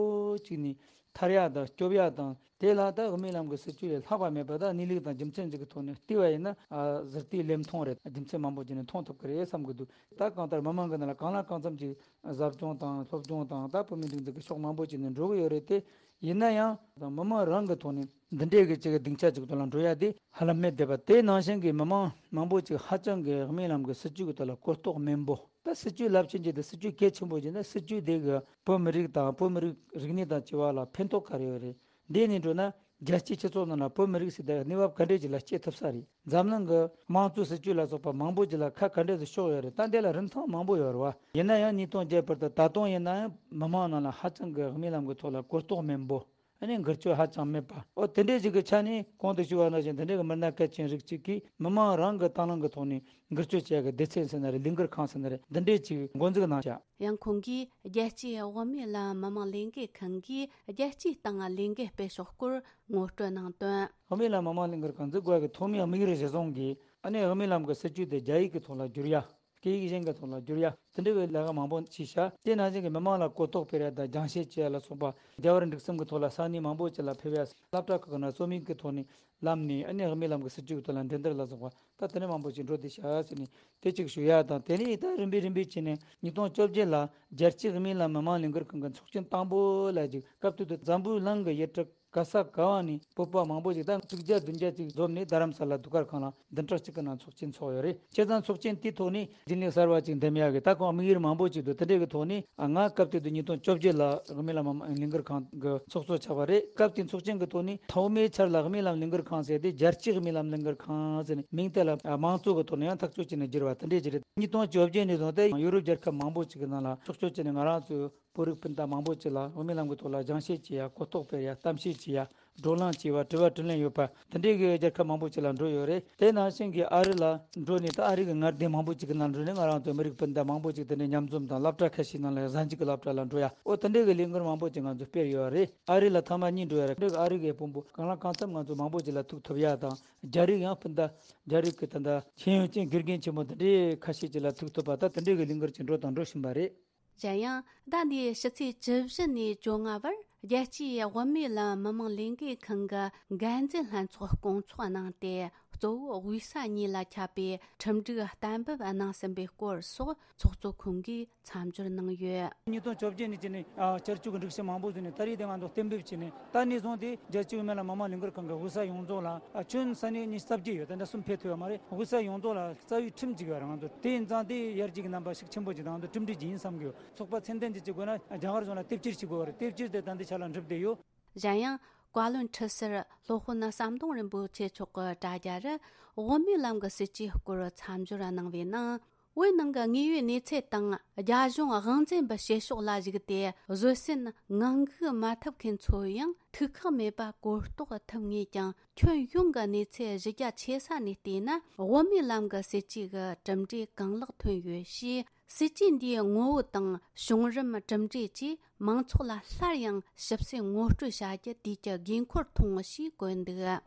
ཅིག་ནས་ཐར་ཡ་དང་སྐྱོབ་ཡ་དང་། དེ་ལ་ད་དབུ་མའི་ལམ་གྱི་སྲིད་ཇུས་ལས་ལྷག་པ་མེད་པ། ད་གནས་ལུགས་དང་རྒྱུ་མཚན་ཅིག་གི་ཐོག་ནས་བལྟས་པ་ཡིན་ན། ཨ་ཟུར་བལྟས་ལེབ་མཐོང་རེད། རྒྱུ་མཚན་མང་པོ་ཅིག་ནས་མཐོང་ཐུབ་ཀྱི་རེད་བསམ་གྱི་འདུག་ད་གང་ལྟར་མི་མང་གི་ནང་ལ་གང་ལ་གང་འཚམ་ཅིག་ཟབ་སྦྱོང་དང་སློབ་སྦྱོང་དང་། ད་བོད་མིའི་སྒྲིག་འཛུགས་ཀྱི་ཕྱོགས་མང་པོ་ཅིག་ནས་འགྲོ་གི་ཡོད་རེད་དེ། ཡིན་ན་ཡང་ད་མི་མང་རང་གི་ཐོག་ནས་འདི་འདྲའི་གི་ཅིག་གི་སྡིངས་ཆ་ཅིག་ཐོག་ལ་འགྲོ་ཡ་དེ་ཧ་ལམ་མེད་བསྡད་པ། དེ་ནང་བཞིན་གྱི་མི་མང་མང་པོ་ཅིག་ཧ་ཅང་གི་དབུ་མའི་ལམ་གྱི་སྲིད་ཇུས་ཀྱི་ཐོག་ལ་གོ་རྟོགས་དམན་པོ། ད་སྲིད་ཇུས་རླབས་ཆེན་ཅིག་དང་སྲིད་ཇུས་གལ་ཆེན་པོ་ཅིག་ནི། སྲིད་ཇུས་དེ་གི་བོད་མི་རིགས་དང་བོད་མི་རིགས་རིག་གནས་དང་བཅས་པ་ལ་ཕན་ཐོགས་ག་རེ་ཡོད་རེད། འདི་ནས་འགྲོ་ན་རྒྱལ་སྤྱིའི་སྤྱི་ཚོགས་ནང་ལ་བོད་མི་རིགས་ཟེར་དེ་གནས་བབ་ག་འདྲས་ཅིག་ལ་སྐྱེལ་ཐུབ་ས་རེད། འཛམ་གླིང་གི་དམངས་གཙོའི་སྲིད་ཇུས་ལ་སོགས་པ་མང་པོ་ཅིག་ལ་ཁ་ག་འདྲས་སུ་ཕྱོགས་ཡོད་རེད། ད་འདི་ལ་རིན་ཐང་མང་པོ་ཡོད་རེད་བ། ཡིན་ན་ཡང་ཉིས་སྟོང་བརྒྱད་བར་དུ་ད་དུང་ཡིན་ན་ཡང་མི་མང་ནང་ལ་ཧ་ཅང་གི་དབུ་མའི་ལམ་གྱི་ཐོག་ལ་གོ་རྟོགས་དམན་པོ། ཨ་ནི་འགུལ་སྐྱོད་ཧ་ཅང་མེད་པ། ཨོ་དེ་འདྲས་ཅིག་གི་ཆ་ནས་གོང་དུ་ཞུས་པ་ནང་བཞིན་དེ་འདྲས་ཀྱི་མི་སྣ་གལ་ཆེན་རིགས་གཅིག་གིས་མི་མང་རང་གི་དང་བླངས་ཀྱི་ཐོག་ནས་འགུལ་སྐྱོད་བྱེད་ཡག་གི་སྡེ་ཚན་ཟེར་ན་རེད། ལས་འགུལ་ཁང་ཟེར་ན་རེད། འདི་འདྲས་ཅིག་འགོ་འཛུགས་གནང་བྱ། ཡང་ཁོང་གིས་རྒྱལ་སྤྱིའི་དབུ་མའི་ལམ་མི་མང་ལས་འགུལ་ཁང་གིས་རྒྱལ་སྤྱིའི་སྟེང་ལས་འགུལ་སྤེལ་ཕྱོགས་སྐོར་ངོ་སྤྲོད་གནང་དོན། དབུ་མའི་ལམ་མི་མང་ལས་འགུལ་ཁང་འཛུགས་དགོས་ཀྱི་ཐོག་མའི་དམིགས་ཡུལ་གཞི་བཟུང་གིས། ཨ་ནི་དབུ་མའི་ལམ་གྱི་སྲིད་ཇུས་དེ་རྒྱ་ཡིག་གི་ཐོག་ལ་བསྒྱུར་ཡ། སྐད་ཡིག་གཞན་གྱི་ཐོག་ལ་བསྒྱུར་ཡ། དེ་འདྲ་བའི་ལས་ཀ་མང་པོ་བྱས་ཤག་དེ་ནང་བཞིན་གྱི་མི་མང་ལ་གོ་རྟོགས་སྤེལ་ཡ་དང་སྦྱང་བཤད་བྱེད་ཡ་ལ་སོགས་པ། རྒྱལ་བ་རིན་པོ་ཆེའི་སྒྲིག་ཁྲིམས་ཀྱི་ཐོག་ལ་ས་གནས་མང་པོ་ཅིག་ལ་ཕེབས་ཡ། སློབ་གྲྭ་ཁག་ནང་རྩོམ་ཡིག་གི་ཐོག་ནས་བསླབས་ནས། ཨ་ནི་དབུ་མའི་ལམ་གྱི་སྲིད་ཇུས་ཀྱི་ཐོག་ལ་འགྲན་བསྡུར་ལ་སོགས་པ། ད་དེ་འདྲ་མང་པོ་ཅིག་འགྲོ་བསྡད་ཤག་ཟེར་ནས་དེ་གཅིག་ཞུ་ཡ་དང་། དེ་ནས་ད་རིམ་པས་རིམ་པས་བྱས་ནས་ཉིས་སྟོང་བཅོ་བརྒྱད་ལ་རྒྱལ་སྤྱིའི་དབུ་མའི་ལམ་མི་མང་ལས་འགུལ་ཁང་གི་ཚོགས་ཆེན་དང་པོ་ལ་ཅིག་སྐབས་དེ་དུས་འཛམ་བུའི་གླིང་གི་ཡུལ་གྲུ་ག་ས་ག་བ་ནས་བོད་པ་མང་པོ་ཞིག་ད་དྲུག་བརྒྱ་བདུན་བརྒྱ་ཅིག་འཛོམས་ནས། རྡ་རམ་ས་ལ་དུས་སྐར་ཁང་ལ་བདུན་ཕྲག་གཅིག་གི་ནང་ཚོགས་ཆེན་ཚོགས་ཡོད་རེད། བྱས་ཙང་ཚོགས་ཆེན་དེའི་ཐོག་ནས་རྒྱུན་ལས་གསར་བ་ཅིག་འདེམས་ཡག་གི། ད་ཁོང་དམིགས་ཡུལ་མང་པོ་ཅིག་འདུག་དེ་འདྲའི་གི་ཐོག་ནས། ཨ་ང་སྐབས་དེ་དུས་ཉིས་སྟོང་བཅོ་བརྒྱད་ལ་དབུ་མའི་ལམ་མི་མང་ལས་འགུལ་ཁང་གི་ཚོགས་གཙོ་ཆགས་པ་རེད། སྐབས་དེའི་ཚོགས་ཆེན་གི་ཐོག་ནས་ཐོག་མའི་ཆར་ལ་དབུ་མའི་ལམ་ལས་འགུལ་ཁང་ཟེར་དེ་རྒྱལ་སྤྱིའི་དབུ་མའི་ལམ་ལས་འགུལ་ཁང་ཟེར་ནས་མིང་དེ་ལ་མང་གཙོ་གི་ཐོག་ནས་ཡང་ཐག་གཅོད་བྱས་ནས་བསྒྱུར་བ་དེ་འདྲས་ཅིག་རེད། ཉིས་སྟོང་བཅོ་བརྒྱད་ནས་བཟུང་སྟེ་ཡུ་རོབ་རྒྱལ་ཁབ་མང་པོ་ཅིག་གི་ནང་ལ་ཕྱོགས་བསྐྱོད་བྱས་ནས། ང་རང་ཚོའི་བོད་རིགས་སྤུན་ཟླ་མང་པོ་ཅིག་ལ་དབུ་མའི་ལམ་གྱི་ཐོག་ལ་སྦྱང་བཤད་བྱེད་ཡ། གོ་རྟོགས་སྤེལ་ཡ། གཏམ་བཤད་བྱེད་ཡ། བགྲོ་གླེང་བྱེད་པ། དྲི་བ་དྲིས་ལན་ཡོད་པ། དེ་འདྲའི་གི་རྒྱལ་ཁབ་མང་པོ་ཅིག་ལ་འགྲོ་ཡོད་རེད། དེ་ནང་བཞིན་གྱི་ཨ་རི་ལ་འགྲོ་ནས། ད་ཨ་རི་གི་མངའ་སྡེ་མང་པོ་ཅིག་གི་ནང་འགྲོ་ནས་ང་རང་ཚོའི་མི་རིགས་སྤུན་ཟླ་མང་པོ་ཅིག་དེ་འདྲའི་མཉམ་འཛོམས་དང་སློབ་གྲྭ་ཁ་ཤས་ནང་ལ། གཟའ་མཇུག་གི་སློབ་གྲྭ་ལ་འགྲོ་ཡ། ཨོ་དེ་འདྲའི་གི་ལས་འགུལ་མང་པོ་ཅིག་ང་ཚོས་སྤེལ་ཡོད་རེད། ཨ་རི་ལ་ཐེངས་མ་གཉིས་འགྲོ་ཡ་རེད། ཨ་རི་གི་དཔོན་པོ་གང་ལ་གང་འཚམ་ང་ཚོ་མང་པོ་ཅིག་ལ་ཐུག་ཐུབ་ཡ་དང་། རྒྱ་རིགས་ཡང་སྤུན་ཟླ། རྒྱ་རིགས་ཀྱི་ད་ལྟ་ཤེས་ཡོན་ཅན་དགེ་རྒན་ཆེན་མོ་དེ་འདྲའི་ཁ་ཤས་ཅིག་ལ་ཐུག་ཐུབ་པ། ད་དེ་འདྲའི་གི་ལས་འགུལ་ཅིག་འགྲོ་དང་འགྲོ་བཞིན་པ་རེད། གཞན་ཡང་ཟླ་འདིའི་ཕྱི་ཚེས་བཅུ་བཞི་ནས་བཅོ་ལྔ་བར་རྒྱལ་སྤྱིའི་དབུ་མའི་ལམ་མི་མང་ལས་འགུལ་ཁང་གི་འགན་འཛིན་ལྷན་ཚོགས་སྐོང་ཚོགས་གནང་སྟེ། གཙོ་བོ་དབུས་ས་གཉིས་ལ་ཁྱབ་པའི་ཁྲིམས་སྒྲིག་གཏན་འབེབས་གནང་ཟིན་པའི་སྐོར་སོགས་ཚོགས་གཙོ་ཁོང་གིས་མཚམས་སྦྱོར་གནང་ཡོད། ཉིས་སྟོང་བཅོ་བརྒྱད་ནས་བྱས་ནས་ཨ་བསྐྱར་བཅོས་ཀྱི་སྒྲིག་གཞི་མང་པོ་བཟོས་ནས། ད་རེས་དེ་ང་ཚོ་གཏན་འབེབས་བྱས་ནས། ད་ནས་བཟུང་སྟེ་རྒྱལ་སྤྱིའི་དབུ་མའི་ལམ་མི་མང་ལས་འགུལ་ཁང་གི་དབུས་ས་ཡོངས་རྫོགས་ལ་ཨ་ཁྱོན་ས་གནས་ཉི་ཤུ་རྩ་བརྒྱད་ཡོད། ད་ལྟ་གསུམ་ཕེབས་ཐུབ་ཡོད་མ་རེད། དབུས་ས་ཡོངས་རྫོགས་ལ་རྩ་བའི་ཁྲིམས་ཅིག་ཡོད་རེད། ང་ཚོ་དེ་ཡིན་ཙང་དེ་ཡར་རྒྱས་ཀྱི་རྣམ་པ་ཤུགས་ཆེན་པོ་ཅིག་དང་། ང་ཚོ་གྲུབ་འབྲས་ཅིག་ཡིན་བསམ་གི་ཡོད། ཚོགས་པ་ཚད་ལྡན་ཅིག་བྱེད་དགོས་ན་རྒྱ་གར་གཞུང་ལ་དེབ་སྐྱེལ་བྱེད་དགོས་པ་རེད། དེབ་སྐྱེལ་དེ་ད་ལྟའི་ཆ་ལ་འགྲུབ་བསྡད་ཡོད། གཞན་ཡང་། བཀའ་བློན་ཁྲི་ཟུར་སློབ་དཔོན་ཟམ་གདོང་རིན་པོ་ཆེ་མཆོག་གི་དྲ་རྒྱ་རུ་དབུ་མའི་ལམ་གྱི་སྲིད་ཇུས་སྐོར་མཚམས་སྦྱོར་གནང་བའི་ནང་། བོད་ནང་གི་དངོས་ཡོད་གནས་ཚུལ་དང་རྒྱ་གཞུང་དབང་འཛིན་པའི་བྱེད་ཕྱོགས་ལ་གཞིགས་ཏེ། བཟོད་བསྲན་ངང་སྒུག་མ་ཐུབ་མཁན་ཚོ་ཡང་ཐུགས་ཁག་མེད་པར་གོ་རྟོགས་ཐུབ་ངེས་ཀྱང་། ཁྱོན་ཡོངས་ཀྱི་གནས་ཚུལ་གཞི་རྒྱ་ཆེ་ས་ནས་བལྟས་ན། དབུ་མའི་ལམ་གྱི་སྲིད་ཇུས་ཀྱི་གྲུབ་འབྲས་གང་ལེགས་ཐོན་ཡོད་ཞེས། སྲིད་ཇུས་འདིའི་ངོ་བོ་དང་བྱུང་རིམ། གྲུབ་འབྲས་བཅས་མང་ཚོགས་ལ་སླར་ཡང་ཞིབ་གསལ་ངོ་སྤྲོད་བྱ་རྒྱུ་དུས་ཀྱི་དགོས་མཁོར་མཐོང་ཞེས་བཀོད་འདུག།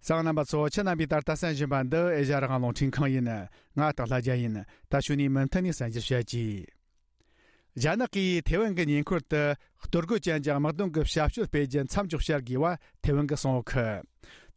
གསན་མཁན་རྣམ་པ་ཚོ། ཁྱེད་རྣམ་པས་ད་ལྟ་གསན་བཞིན་པ་འདི་ཨེ་ཤ་ཡ་རང་དབང་རླུང་འཕྲིན་ཁང་ཡིན། ང་སྟག་ལྷ་རྒྱལ་ཡིན། ད་གཞུག་ནས་མུ་མཐུད་ནས་གསན་རྒྱུར་བྱ་གྱིས། རྒྱ་ནག་གིས་ཐེ་ཝན་གྱི་ཉེ་འཁོར་དུ་གཏོར་རྒོལ་ཅན་གྱི་དམག་དོན་གྱི་བྱ་སྤྱོད་སྤེལ་རྒྱུ་མཚམས་འཇོག་བྱ་དགོས་པ་ཐེ་ཝན་གྱིས་གསུངས་ཡོད་གི།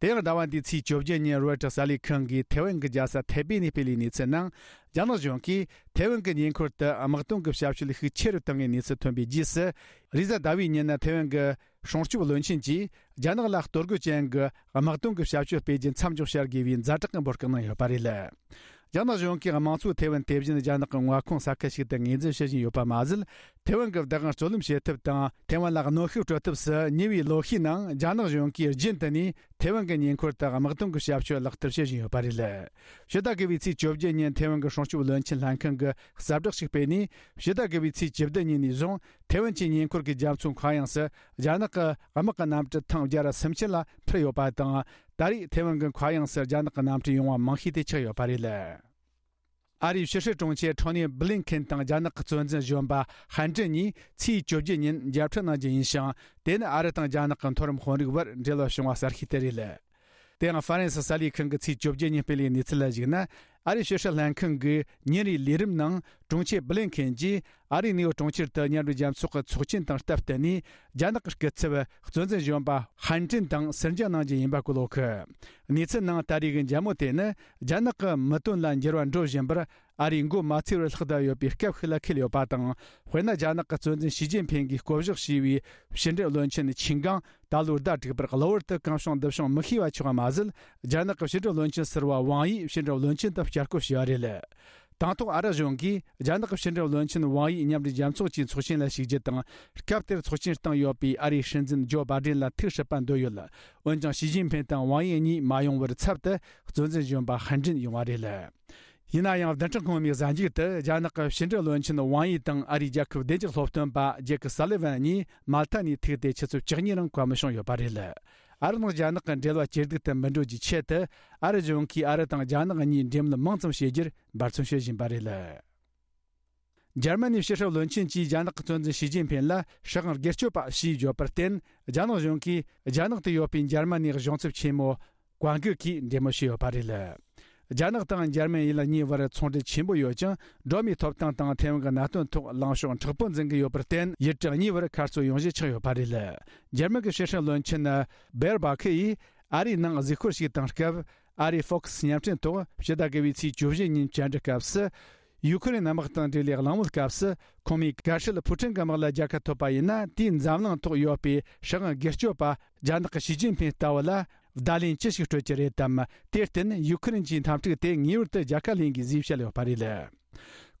དེ་ཡང་ཟླ་བ་འདིའི་ཚེས་བཅོ་བརྒྱད་ཉིན་རོའི་ཊར་གསར་ལས་ཁང་གིས་ཐེ་ཝན་གྱི་རྒྱལ་ས་ཐའེ་པེ་ནས་སྤེལ་བའི་གནས་ཚུལ་ནང་། རྒྱ་ནག་གཞུང་གིས་ཐེ་ཝན་གྱི་ཉེ་འཁོར་དུ་དམག་དོན་གྱི་བྱ་སྤྱོད་ཤུགས་ཆེ་རུ་བཏང་བའི་གནས་ཚུལ་ཐོན་པའི་རྗེས་སུ། རེས་གཟའ་ཟླ་བའི་ཉིན་ཐེ་ཝན་གྱི་སྲུང་སྐྱོབ་བློན་ཆེན་གྱིས་རྒྱ་ནག་ལ་གཏོར་རྒོལ་ཅན་གྱི་དམག་དོན་གྱི་བྱ་སྤྱོད་སྤེལ་རྒྱུ་མཚམས་འཇོག་བྱ་དགོས་པའི་ཛ་དྲག་གི་འབོད་སྐུལ་གནང་ཡོད་པ་རེད། རྒྱ་ནག་གཞུང་གིས་དམངས་གཙོའི་ཐེ་ཝན་དེ་བཞིན་རྒྱ་ནག་གི་མངའ་ཁོངས་ས་ཁུལ་ཞིག་ཏུ་ངོས་འཛིན་བྱེད་བཞིན་ཡོད་པ་མ་ཟད། ཐེ་ཝན་གྱི་བདག་དབང་རྩོད་ལེན་བྱེད་ཐབས་དང་། ཐེ་ཝན་ལ་གནོན་ཤུགས་སྤྲོད་ཐབས་སུ་ཉེ་བའི་ལོ་ཤས་ནང་རྒྱ་ནག་གཞུང་གིས་རྒྱུན་དུ་ནས་ཐེ་ཝན་གྱི་ཉེ་འཁོར་དུ་དམག་དོན་གྱི་བྱ་སྤྱོད་ལག་བསྟར་བྱེད་བཞིན་ཡོད་པ་རེད། ཕྱི་ཟླ་དགུ་པའི་ཚེས་བཅོ་བརྒྱད་ཉིན་ཐེ་ཝན་གྱི་སྲུང་སྐྱོབ་བློན་ཆེན་ལྷན་ཁང་གིས་གསལ་བསྒྲགས་ཤིག་སྤེལ་ནས། ཕྱི་ཟླ་དགུ་པའི་ཚེས་བཅུ་བདུན་ཉིན་ནས་བཟུང་ཐེ་ཝན་གྱི་ཉེ་འཁོར་གྱི་རྒྱ་མཚོ་མཁའ་དབྱིངས་སུ་རྒྱ་ནག་གི་དམག་གི་གནམ་གྲུ་ཐེངས་བརྒྱ་ར་སུམ་ཅུ་ལ་འཕུར་ཡོད་པ་དང་། ད་རེས་ཐེ་ཝན་གྱི་མཁའ་དབྱིངས་སུ་རྒྱ་ནག་གི་གནམ་གྲུ་ཡོང་བ་མང་ཤོས་དེ་ཆགས་ཡོད་པ་རེད། ཨ་རིའི་ཕྱི་སྲིད་དྲུང་ཆེ་ཁྲོ་ནེ་བྷི་ལིན་ཁེན་དང་རྒྱ་ནག་གི་གཙོ་འཛིན་གཞོན་པ་ཧན་ཀྲིན་གཉིས་ཚེས་བཅོ་བརྒྱད་ཉིན་མཇལ་འཕྲད་གནང་རྒྱུ་ཡིན་ཞིང་། དེ་ནི་ཨ་རི་དང་རྒྱ་ནག་གི་མཐོ་རིམ་དཔོན་རིགས་བར་འབྲེལ་བ་བྱུང་བ་གསར་ཤོས་དེ་རེད། དེ་ཡང་ཧྥ་རན་སི་གསར་ལས་ཁང་གིས་ཚེས་བཅོ་བརྒྱད་ཉིན་སྤེལ་བའི་གནས་ཚུལ་ལ་གཞིགས་ན། ཨ་རིའི་ཕྱི་སྲིད་ལྷན་ཁང་གི་ཉིན་རེའི་ལས་རིམ་ནང་དྲུང་ཆེ་བྷི་ལིན་ཁེན་གྱིས་ཨ་རིའི་ནེའུ་ཡོག་གྲོང་ཁྱེར་དུ་མཉམ་འབྲེལ་རྒྱལ་ཚོགས་ཀྱི་ཚོགས་ཆེན་དང་སྟབས་བསྟུན་ནས། རྒྱ་ནག་གི་སྐུ་ཚབ་གཙོ་འཛིན་གཞོན་པ་ཧན་ཀྲིན་དང་ཟུར་མཇལ་གནང་རྒྱུ་ཡིན་པ་བཀོད་ཡོད་གི། གནས་ཚུལ་ནང་ད་རེས་ཀྱི་མཇལ་མོལ་དེ་ནི། རྒྱ་ནག་གི་མི་དོན་ལ་འགྱུར་བ་འགྲོ་བཞིན་པར། ཨ་རིས་འགོ་མ་ཚུགས་པར་ལྷག་བསྡད་ཡོད་པའི་སྐབས་ཤིག་ལ་འཁེལ་ཡོད་པ་དང་། དཔེར་ན། རྒྱ་ནག་གི་གཙོ་འཛིན་ཞི་ཅིན་ཕིང་གིས་བསྐོ་གཞག་བྱས་པའི་ཕྱི་འབྲེལ་བློན་ཆེན་ཆིན་ཀང་ད་ལོའི་ཟླ་དྲུག་པར་གློ་བུར་དུ་གང་བྱུང་འདི་བྱུང་མི་ཤེས་པ་ཆགས་པ་མ་ཟད། རྒྱ་ནག་གི་ཕྱི་འབྲེལ་བློན་ཆེན་ཟུར་པ་ཝང་ཡི་ཕྱི་འབྲེལ་བློན་ཆེན་དུ་བསྐྱར་བསྐོ་བྱས་པ་རེད། དང་ཐོག་ཨ་རི་གཞུང་གིས་རྒྱ་ནག་གི་ཕྱི་འབྲེལ་བློན་ཆེན་ཝང་ཡི་མཉམ་འབྲེལ་རྒྱལ་ཚོགས་ཀྱི་ཚོགས་ཆེན་ལ་ཞུགས་རྒྱུ་དང་། སྐབས་དེར་ཚོགས་ཆེན་སྟེང་ཡོད་པའི་ཨ་རིའི་སྲིད་འཛིན་ཇོ་བྷ་ཌེན་ལ་ཐུགས་སྲིད་པ་འདོད་ཡོད། འོན་ཀྱང་། ཞི་ཅིན་ཕིང་དང་ཝང་ཡི་གཉིས་མ་ཡོང་བར་ཚབ་ཏུ་གཙོ་འཛིན་གཞོན་པ་ཧན་ཀྲིན་ཡོང་བ་རེད། ཡིན་ན་ཡང་། བདུན་ཕྲག་སྔོན་མའི་གཟའ་མཇུག་ཏུ་རྒྱ་ནག་གི་ཕྱི་འབྲེལ་བློན་ཆེན་ཝང་ཡི་དང་ཨ་རིའི་རྒྱལ་ཁབ་བདེ་འཇགས་སློབ་སྟོན་པ་ཇེ་ཀི་སཱ་ལི་ཝན་གཉིས་མལ་ཐ་ནས་ཐུག་སྟེ་ཆུ་ཚོད་བཅུ་གཉིས་རིང་བཀའ་མོལ་བྱུང་ཡོད་པ་རེད། ཨ་རི་དང་རྒྱ་ནག་གི་འབྲེལ་བ་ཇེ་སྡུག་ཏུ་མི་འགྲོ་རྒྱུའི་ཆེད་དུ། ཨ་རི་གཞུང་གིས་ཨ་རི་དང་རྒྱ་ནག་གཉིས་འབྲེལ་མོལ་མང་ཙམ་བྱེད་རྒྱུར་འབད་བརྩོན་བྱེད་བཞིན་པ་རེད། འཇར་མ་ནིའི་ཕྱི་སྲིད་བློན་ཆེན་གྱིས་རྒྱ་ནག་གི་གཙོ་འཛིན་ཞི་ཅིན་ཕིང་ལ་སྲིད་དབང་སྒེར་གཅོད་པ་ཞེས་བརྗོད་པར་བརྟེན། རྒྱ་ནག་གཞུང་གིས་རྒྱ་ནག་ཏུ་ཡོད་པའི་འཇར་མ་ནིའི་གཞུང་ཚབ་ཆེན་མོ་ཀོང་གི་གིས་འབྲེལ་མོལ་བྱས་ཡོད་པ་རེད། རྒྱ་ནག་དང་འཇར་མན་ཡུལ་གཉིས་བར་ཚོང་འབྲེལ་ཆེན་པོ་ཡོད་ཅིང་། སྒྲོལ་མའི་ཐོབ་ཐང་དང་ཐའེ་ཝན་གྱི་གནད་དོན་ཐོག་ལངས་ཕྱོགས་མཁྲེགས་པོ་འཛིན་གྱི་ཡོད་པར་བརྟེན། ཡུལ་གྲུ་གཉིས་བར་མཁར་རྩོད་ཡོང་གཞི་ཆགས་ཡོད་པ་རེད། འཇར་མན་གྱི་ཕྱི་སྲིད་བློན་ཆེན་བེར་བྷ་ཁི་ཡིས་ཨ་རིའི་ནང་གཟིགས་སྐོར་ཞིག་བཏང་སྐབས། ཨ་རིའི་ཧྥོག་སི་བརྙན་འཕྲིན་ཐོག་ཕྱི་ཟླ་དགུ་པའི་ཚེས་བཅུ་བཞི་ཉིན་བཅར་འདྲི་སྐབས་སུ། ཡུ་ཁུ་རེན་དམག་དང་འབྲེལ་བའི་གླེང་མོལ་སྐབས་སུ། ཁོང་མོས་གལ་སྲིད་ཕུ་ཁྲིན་གྱི་དམག་ལ་རྒྱལ་ཁ་ཐོབ་པ་ཡིན་ན། དེའི་འཛམ་གླིང་ཐོག་ཡོད་པའི་སྲིད་དབང་སྒེར་གཅོད་པ་རྒྱ་ནག་གི་ཞི་ཅིན་ཕིང་ལྟ་བུ་ལ་བརྡ་ལན་ཅི་ཞིག་སྤྲོད་ཀྱི་རེད་དམ། དེར་བརྟེན་ཡུ་ཁུ་རེན་གྱི་འཐབ་འཁྲུག་དེ་ངེས་པར་དུ་རྒྱལ་ཁ་ལེན་དགོས་ཞེས་བཤད་ཡོད་པ་རེད།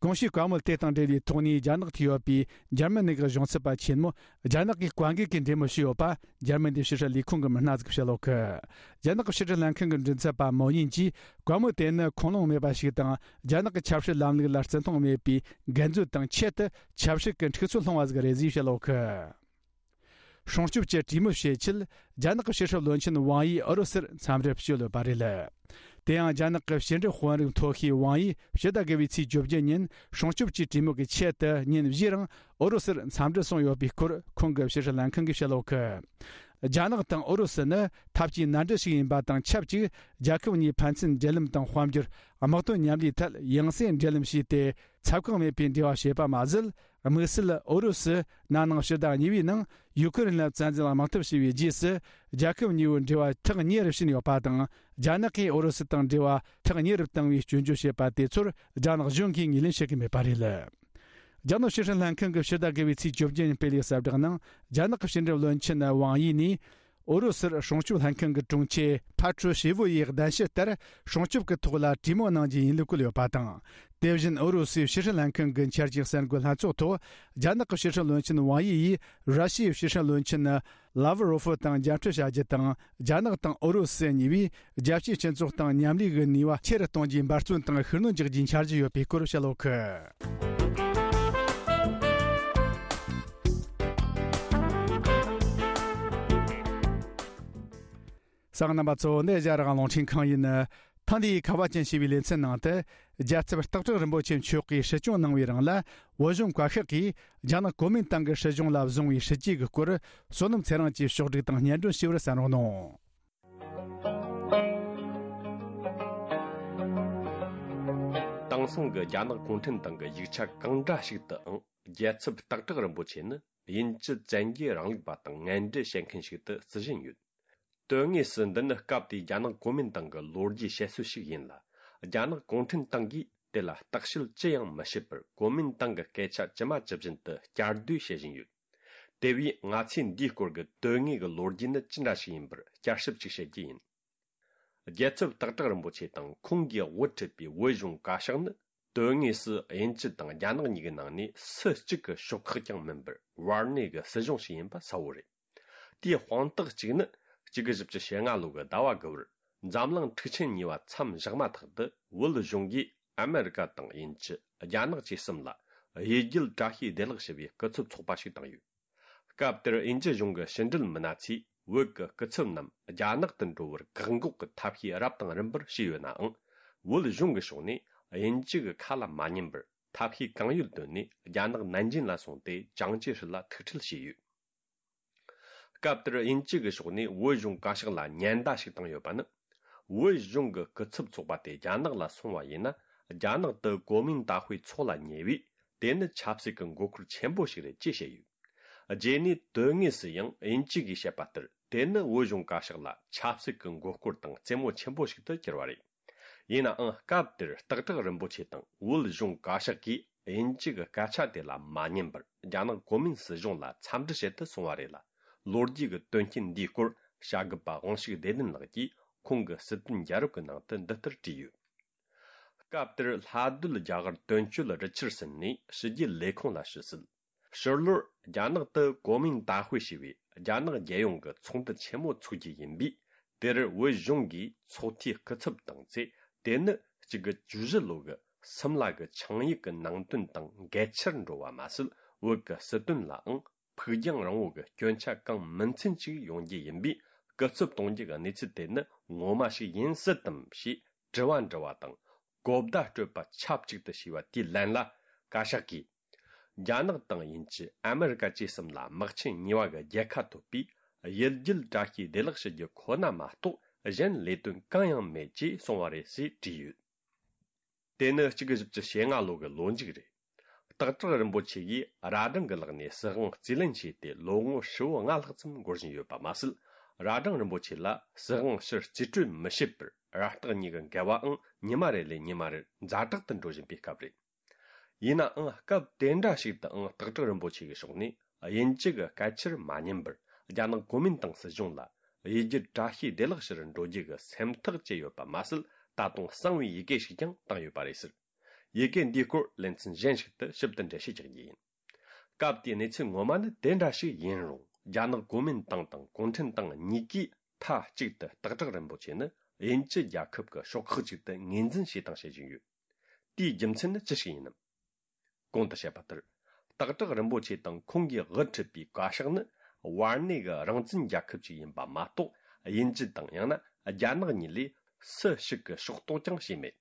གོང་ཞུས་བཀའ་མོལ་དེ་དང་འབྲེལ་བའི་ཐོག་ནས། རྒྱ་ནག་ཏུ་ཡོད་པའི་འཇར་མ་ནི་གི་གཞུང་ཚབ་པ་ཆེན་མོ་རྒྱ་ནག་གི་ཀོང་གི་གིས་འབྲེལ་མོལ་བྱས་ཡོད་པ། འཇར་མན་གྱི་ཕྱི་སྲིད་ལས་ཁུངས་ཀྱི་མི་སྣ་ཟིག་བཤད་ཡོད་གི། རྒྱ་ནག་གི་ཕྱི་སྲིད་ལྷན་ཁང་གི་མགྲིན་ཚབ་པ་མོ་ཉིན་གྱིས་བཀའ་མོལ་དེ་ནི་ཁུངས་ལུང་མེད་པ་ཞིག་དང་། རྒྱ་ནག་གི་ཆབ་སྲིད་ལམ་ལུགས་ལ་བརྩི་མཐོང་མེད་པའི་འགལ་འཛོལ་དང་། ཆེད་དུ་ཆབ་སྲིད་ཀྱི་འཁྲུག་རྩོད་སློང་བ་ཟིག་རེད་ཅེས་བཤད་ཡོད་གི། སྲུང་སྐྱོབ་ཀྱི་གྲོས་མོལ་བྱེད་ཆེད། རྒྱ་ནག་གི་ཕྱི་སྲིད་བློན་ཆེན་ཝང་ཡི་ཨུ་རུ་སུར་འཚམས་འདྲིར་བསྐྱོད་ཡོད་པ་རེད། དེ་ཡང་། རྒྱ་ནག་གི་ཕྱི་འབྲེལ་དཔོན་རིགས་མཐོ་ཤོས་ཝང་ཡིས་ཕྱི་ཟླ་དགུ་པའི་ཚེས་བཅོ་བརྒྱད་ཉིན་སྲུང་སྐྱོབ་ཀྱི་གྲོས་མོལ་གྱི་ཆེད་དུ་ཉིན་བཞིའི་རིང་ཨུ་རུ་སུར་འཚམས་འདྲིར་སོང་ཡོད་པའི་སྐོར། ཁོང་གི་ཕྱི་སྲིད་ལྷན་ཁང་གིས་བཤད་ཡོད་གི། རྒྱ་ནག་དང་ཨུ་རུ་སུ་ནི་འཐབ་ཇུས་མནའ་འབྲེལ་ཞིག་ཡིན་པ་དང་ཆབས་ཅིག། རྒྱལ་ཁབ་གཉིས་ཕན་ཚུན་འབྲེལ་ལམ་དང་། དཔལ་འབྱོར། དམག་དོན་མཉམ་ལས་ཐད་ཡང་སེ་འབྲེལ་ལམ་བྱས་ཏེ། ཚབ་ཁག་མེད་པའི་འབྲེལ་བ་བྱས་པ་མ་ཟད། དམིགས་བསལ་ཨུ་རུ་སུ་ན་ནིང་ཕྱི་ཟླ་གཉིས་པའི་ནང་ཡུ་ཁུ་རེན་ལ་བཙན་འཛུལ་དམག་འཐབ་བྱས་པའི་རྗེས་སུ། རྒྱལ་ཁབ་གཉིས་པོའི་འབྲེལ་བ་ཐག་ཉེ་རུ་ཕྱིན་ཡོད་པ་དང་། རྒྱ་ནག་གིས་ཨུ་རུ་སུ་དང་འབྲེལ་བ་ཐག་ཉེ་རུ་བཏང་བའི་སྐྱོན་བརྗོད་བྱས་པ་དེ་ཚོར་རྒྱ་ནག་གཞུང་གིས་ངོས་ལེན་བྱེད་ཀྱི་མེད་པ་རེད། རྒྱ་ནག་ཕྱི་སྲིད་ལྷན་ཁང་གིས་ཕྱི་ཟླ་དགུ་པའི་ཚེས་བཅོ་བརྒྱད་ཉིན་སྤེལ་བའི་གསལ་བསྒྲགས་ནང་། རྒྱ་ནག་གི་ཕྱི་འབྲེལ་བློན་ཆེན་ཝང་ཡི་ནས། ཨུ་རུ་སུར་སྲུང་སྐྱོབ་ལྷན་ཁང་གི་དྲུང་ཆེ་ཕ་ཁྲུ་ཤེ་ཝུ་ཡིས་གདན་ཞུ་ལྟར། སྲུང་སྐྱོབ་ཀྱི་ཐོག་ལ་གྲོས་མོལ་གནང་རྒྱུ་ཡིན་ལུགས་བཀོད་ཡོད་པ་དང་། དེ་བཞིན་ཨུ་རུ་སུའི་ཕྱི་སྲིད་ལྷན་ཁང་གི་འཆར་ཅན་གསར་འགོད་ལྷན་ཚོགས་ཐོག། རྒྱ་ནག་གི་ཕྱི་སྲིད་བློན་ཆེན་ཝང་ཡི་ཡིས་ར་ཤི་ཡའི་ཕྱི་སྲིད་བློན་ཆེན་ ལ་ཝ་རོ་ཧྥི་དང་མཇལ་འཕྲད་བྱ་རྒྱུ་དང་། རྒྱ་ནག་དང་ཨུ་རུ་སུ་གཉིས་པོས་རྒྱལ་སྤྱིའི་སྤྱི་ཚོགས་དང་མཉམ་ལས་ཀྱི་ནུས་པ་ཆེ་རུ་གཏོང་རྒྱུའི་འབད་བརྩོན་དང་ཤུགས་སྣོན་རྒྱག་རྒྱུའི་འཆར་གཞི་ཡོད་པའི་སྐོར་བཤད་ཡོད་གི། གསན་མཁན་རྣམ་པ་ཚོ། འདི་ཨེ་ཤ་ཡ་རང་དབང་རླུང་འཕྲིན་ཁང་ཡིན། ཐེངས་འདིའི་ཁ་བ་ཅན་ཞེས་པའི་ལེ་ཚན་ནང་དུ། རྒྱལ་ཚབ་སྟག་བྲག་རིན་པོ་ཆེ་མཆོག་གིས་སྲིད་སྐྱོང་གནང་བའི་རིང་ལ། བོད་གཞུང་བཀའ་ཤག་གིས་རྒྱ་ནག་གོ་མིན་ཏང་གི་སྲིད་གཞུང་ལ་བཟུང་བའི་སྲིད་ཇུས་ཀྱི་སྐོར། བསོད་ནམས་ཚེ་རིང་གིས་ཕྱོགས་བསྒྲིགས་དང་སྙན་སྒྲོན་ཞུས་པར་གསན་རོགས་གནང་། དེང་སང་གི་རྒྱ་ནག་གུང་ཁྲན་ཏང་གི་ཡིག་ཆ་གང་འདྲ་ཞིག་ཏུའང་། རྒྱལ་ཚབ་སྟག་བྲག་རིན་པོ་ཆེ་ནི་དབྱིན་ཇི་བཙན་རྒྱལ་རིང་ལུགས་པ་དང་ངན་འབྲེལ་བྱེད་མཁན་ཞིག་ཏུ་བརྩི་བཞིན་ཡོད། དོན་དངོས་སུ་འདི་ནི་སྐབས་དེའི་རྒྱ་ནག་གོ་མིན་ཏང་གི་ལོ་རྒྱུས་བཤད་སྲོལ་ཞིག་ཡིན་ལ། རྒྱ་ནག་གུང་ཁྲན་ཏང་གིས་དེ་ལ་བརྟག་དཔྱད་ཅི་ཡང་མི་བྱེད་པར། གོ་མིན་ཏང་གི་སྐད་ཆ་ཇི་མ་ཇི་བཞིན་དུ་བསྐྱར་ཟློས་བྱེད་བཞིན་ཡོད། དེ་བས་ང་ཚོས་འདིའི་སྐོར་གྱི་དོན་དངོས་ཀྱི་ལོ་རྒྱུས་ནི་ཅི་འདྲ་ཞིག་ཡིན་པར་བསྐྱར་ཞིབ་ཅིག་བྱེད་རྒྱུ་ཡིན། རྒྱལ་ཚབ་སྟག་བྲག་རིན་པོ་ཆེ་དང་ཁོང་གིས་དབུ་ཁྲིད་པའི་བོད་གཞུང་བཀའ་ཤག་ནི། དོན་དངོས་སུ་དབྱིན་ཇི་དང་རྒྱ་ནག་གཉིས་ཀྱི་ནང་ནས་སུ་གཅིག་གི་ཕྱོགས་ཁག་ཀྱང་མིན་པར། བར་གནས་ཀྱི་སྲིད་གཞུང་ཞིག་ཡིན་པ་གསལ་བོ་རེད། དེའི་དཔང་རྟགས་གཅིག་ནི། གཅིག་དགུ་བཞི་བཅུ་ཞེ་ལྔ་ལོ་གི་ཟླ་བ་དགུ་པར། འཛམ་གླིང་འཁྲུག་ཆེན་གཉིས་པ་མཚམས་བཞག་མ་ཐག་ཏུ། བོད་གཞུང་གིས་ཨ་མེ་རི་ཀ་དང་དབྱིན་ཇི། རྒྱ་ནག་བཅས་གསུམ་ལ། གཡུལ་རྒྱལ་བཀྲ་ཤིས་བདེ་ལེགས་ཞེས་པའི་སྐུ་ཚབ་ཚོགས་པ་ཞིག་བཏང་ཡོད། སྐབས་དེར་དབྱིན་ཇི་གཞུང་གི་ཕྱི་འབྲེལ་མི་སྣ་ཚོས། བོད་ཀྱི་སྐུ་ཚབ་རྣམས་རྒྱ་ནག་ཏུ་འགྲོ་བར་བཀག་འགོག་གི་ཐབས་ཤེས་རབ་དང་རིམ་པར་བྱས་ཡོད་ནའང་། བོད་གཞུང་གི་ཕྱོགས་ནས་དབྱིན་ཇི་གི་ཁ་ལ་མ་ཉན་པར། ཐབས་ཤེས་གང་ཡོད་བཏོན་ནས། རྒྱ་ནག་ནན་ཅིན་ལ་སོང་སྟེ། ཅང་ཅེ་ཧྲི་ལ་ཐུག་འཕྲད་བྱས་ཡོད། སྐབས་དེར་དབྱིན་ཇི་གི་ཕྱོགས་ནས་བོད་གཞུང་བཀའ་ཤག་ལ་ཉེན་བརྡ་ཞིག་བཏང་ཡོད་པ་ནི། བོད་གཞུང་གི་སྐུ་ཚབ་ཚོགས་པ་དེ་རྒྱ་ནག་ལ་སོང་བ་ཡིན་ན། རྒྱ་ནག་ཏུ་གོ་མིན་ཏང་ཧུའེ་ཚོགས་ལ་ཉེ་བས། དེ་ནི་ཆབ་སྲིད་ཀྱི་མགོ་སྐོར་ཆེན་པོ་ཞིག་རེད་ཅེས་བཤད་ཡོད། རྗེས་ནས་དོན་དངོས་སུ་ཡང་དབྱིན་ཇི་གིས་བཤད་པ་ལྟར། དེ་ནི་བོད་གཞུང་བཀའ་ཤག་ལ་ཆབ་སྲིད་ཀྱི་མགོ་སྐོར་དང་རྩེད་མོ་ཆེན་པོ་ཞིག་ཏུ་གྱུར་བ་རེད། ཡིན་ནའང་། སྐབས་དེར་སྟག་བྲག་རིན་པོ་ཆེ་དང་བོད་གཞུང་བཀའ་ཤག་གིས་དབྱིན་ཇི་གི་སྐད་ཆ་དེ་ལ་མ་ཉན་པར། རྒྱ་ནག་གོ་མིན་སྲིད་གཞུང་ལ་འཚམས་འདྲི་བྱེད་དུ་སོང་བ་རེད་ལ། ལོ་རྒྱུས་ཀྱི་དོན་རྐྱེན་འདིའི་སྐོར། བྱ་དགའ་པ་དབང་ཕྱུག་བདེ་ལྡན་ལགས་ཀྱིས་ཁོང་གི་སྲིད་དོན་རྒྱལ་རབས་ཀྱི་ནང་དུ་འདི་ལྟར་བྲིས་ཡོད། སྐབས་དེར་ལྷ་སྡོད་རྒྱ་གར་དོན་གཅོད་རི་ཆར་སན་ནས་ཕྱི་རྒྱལ་ལས་ཁུངས་ལ་ཞུ་སྲིད། ཕྱི་ལོར་རྒྱ་ནག་ཏུ་གོ་མིན་ཏང་ཧུའེ་ཞེས་པའི་རྒྱ་ནག་རྒྱལ་ཡོངས་ཀྱི་ཚོགས་འདུ་ཆེན་མོ་འཚོགས་རྒྱུ་ཡིན་པས། དེར་བོད་གཞུང་གིས་ཚོགས་འཐུས་སྐུ་ཚབ་བཏང་ཚེ། དེ་ནི་གཅིག་དགུ་བཅུ་བཞི་ལོ་གི་སིམ་ལ་གི་ཆིངས་ཡིག་གི་ནང་དོན་དང་འགལ་ཆར་འགྲོ་བ་མ་ཟད། བོད་ཀྱི་སྲིད་དོན་ལའང་ཕུགས་རྒྱང་རིང་བོ་གི་སྐྱོན་ཆ་གང་མིན་ཚུན་ཅིག་ཡོང་རྒྱུ་ཡིན་པས། སྐུ་ཚབ་གཏོང་རྒྱུ་གི་གནས་ཚུལ་དེ་ནི་ངོ་མ་ཞིག་ཡིན་སྲིད་དམ་ཞེས་དྲི་བ་འདྲི་བ་དང་། གོ་བརྡ་སྤྲོད་པ་ཆབས་ཅིག་ཏུ་བྱས་པ་དེའི་ལན་ལ། བཀའ་ཤག་གིས། རྒྱ་ནག་དང་དབྱིན་ཇི། ཨ་མེ་རི་ཀ་བཅས་གསུམ་ལ་དམག་ཆེན་གཉིས་པ་གི་རྒྱལ་ཁ་ཐོབ་པས། གཡུལ་རྒྱལ་བཀྲ་ཤིས་བདེ་ལེགས་ཞུ་རྒྱུ་ཁོ་ན་མ་གཏོགས། གཞན་ལས་དོན་གང་ཡང་མེད་ཅེས་གསུངས་པ་རེད་ཅེས་བྲིས་ཡོད། དེ་ནི་གཅིག་དགུ་བཞི་བཅུ་ཞེ་ལྔ་ལོ་གི་ལོ་མཇུག་རེད། སྟག་བྲག་རིན་པོ་ཆེ་ཡིས་རྭ་སྒྲེང་གི་ལག་ནས་སྲིད་དབང་རྩིས་ལེན་བྱས་ཏེ་ལོ་ངོ་ཧྲིལ་བོ་ལྔ་ལྷག་ཙམ་འགོར་བཞིན་ཡོད་པ་མ་ཟད། རྭ་སྒྲེང་རིན་པོ་ཆེ་ལ་སྲིད་དབང་ཕྱིར་རྩིས་སྤྲོད་མི་བྱེད་པར་རྭ་སྟག་གཉིས་ཀྱི་འགལ་བའང་ཉི་མ་རེ་ལས་ཉི་མ་རེར་ཛ་དྲག་ཏུ་འགྲོ་བཞིན་པའི་སྐབས་རེད། ཡིན་ནའང་སྐབས་དེ་འདྲ་ཞིག་ཏུའང་སྟག་བྲག་རིན་པོ་ཆེ་གི་ཕྱོགས་ནས་དབྱིན་ཇི་གི་སྐད་ཆར་མ་ཉན་པར། རྒྱ་ནག་གོ་མིན་ཏང་སྲིད་གཞུང་ལ་གཡུལ་རྒྱལ་བཀྲ་ཤིས་བདེ་ལེགས་ཞུ་རུ་འགྲོ་རྒྱུ་གི་སེམས་ཐག་བཅད་ཡོད་པ་མ་ཟད། ད་དུང་གསང་བའི་ཡི་གེ་ཞིག་ཀྱང་བཏང་ཡོད་པ་རེད་ཟེར། ཡི་གེ་འདིའི་སྐོར་ལེ་ཚན་གཞན་ཞིག་ཏུ་ཞིབ་ཏུ་འགྲེལ་བཤད་རྒྱག་རྒྱུ་ཡིན། སྐབས་དེའི་གནས་ཚུལ་ངོ་མ་ནི་དེ་འདྲ་ཞིག་ཡིན་རུང་། རྒྱ་ནག་གོ་མིན་ཏང་དང་གུང་ཁྲན་ཏང་གཉིས་ཀས་མཐའ་གཅིག་ཏུ་སྟག་བྲག་རིན་པོ་ཆེ་ནི་དབྱིན་ཇི་རྒྱལ་ཁབ་ཀྱི་ཕྱོགས་ཁག་ཅིག་ཏུ་ངོས་འཛིན་བྱས་དང་བྱེད་བཞིན་ཡོད། དེའི་རྒྱུ་མཚན་ནི་ཅི་ཞིག་ཡིན་ནམ། གོང་དུ་བཤད་པ་ལྟར། སྟག་བྲག་རིན་པོ་ཆེ་དང་ཁོང་གིས་དབུ་ཁྲིད་པའི་བཀའ་ཤག་ནི་བར་གནས་ཀྱི་རང་བཙན་རྒྱལ་ཁབ་ཅིག་ཡིན་པ་མ་གཏོགས། དབྱིན་ཇི་དང་ཡང་ན་རྒྱ་ནག་གཉིས་ལས་སུ་ཞིག་གིས་ཕྱོགས་གཏོགས་ཀྱང་བྱས་མེད།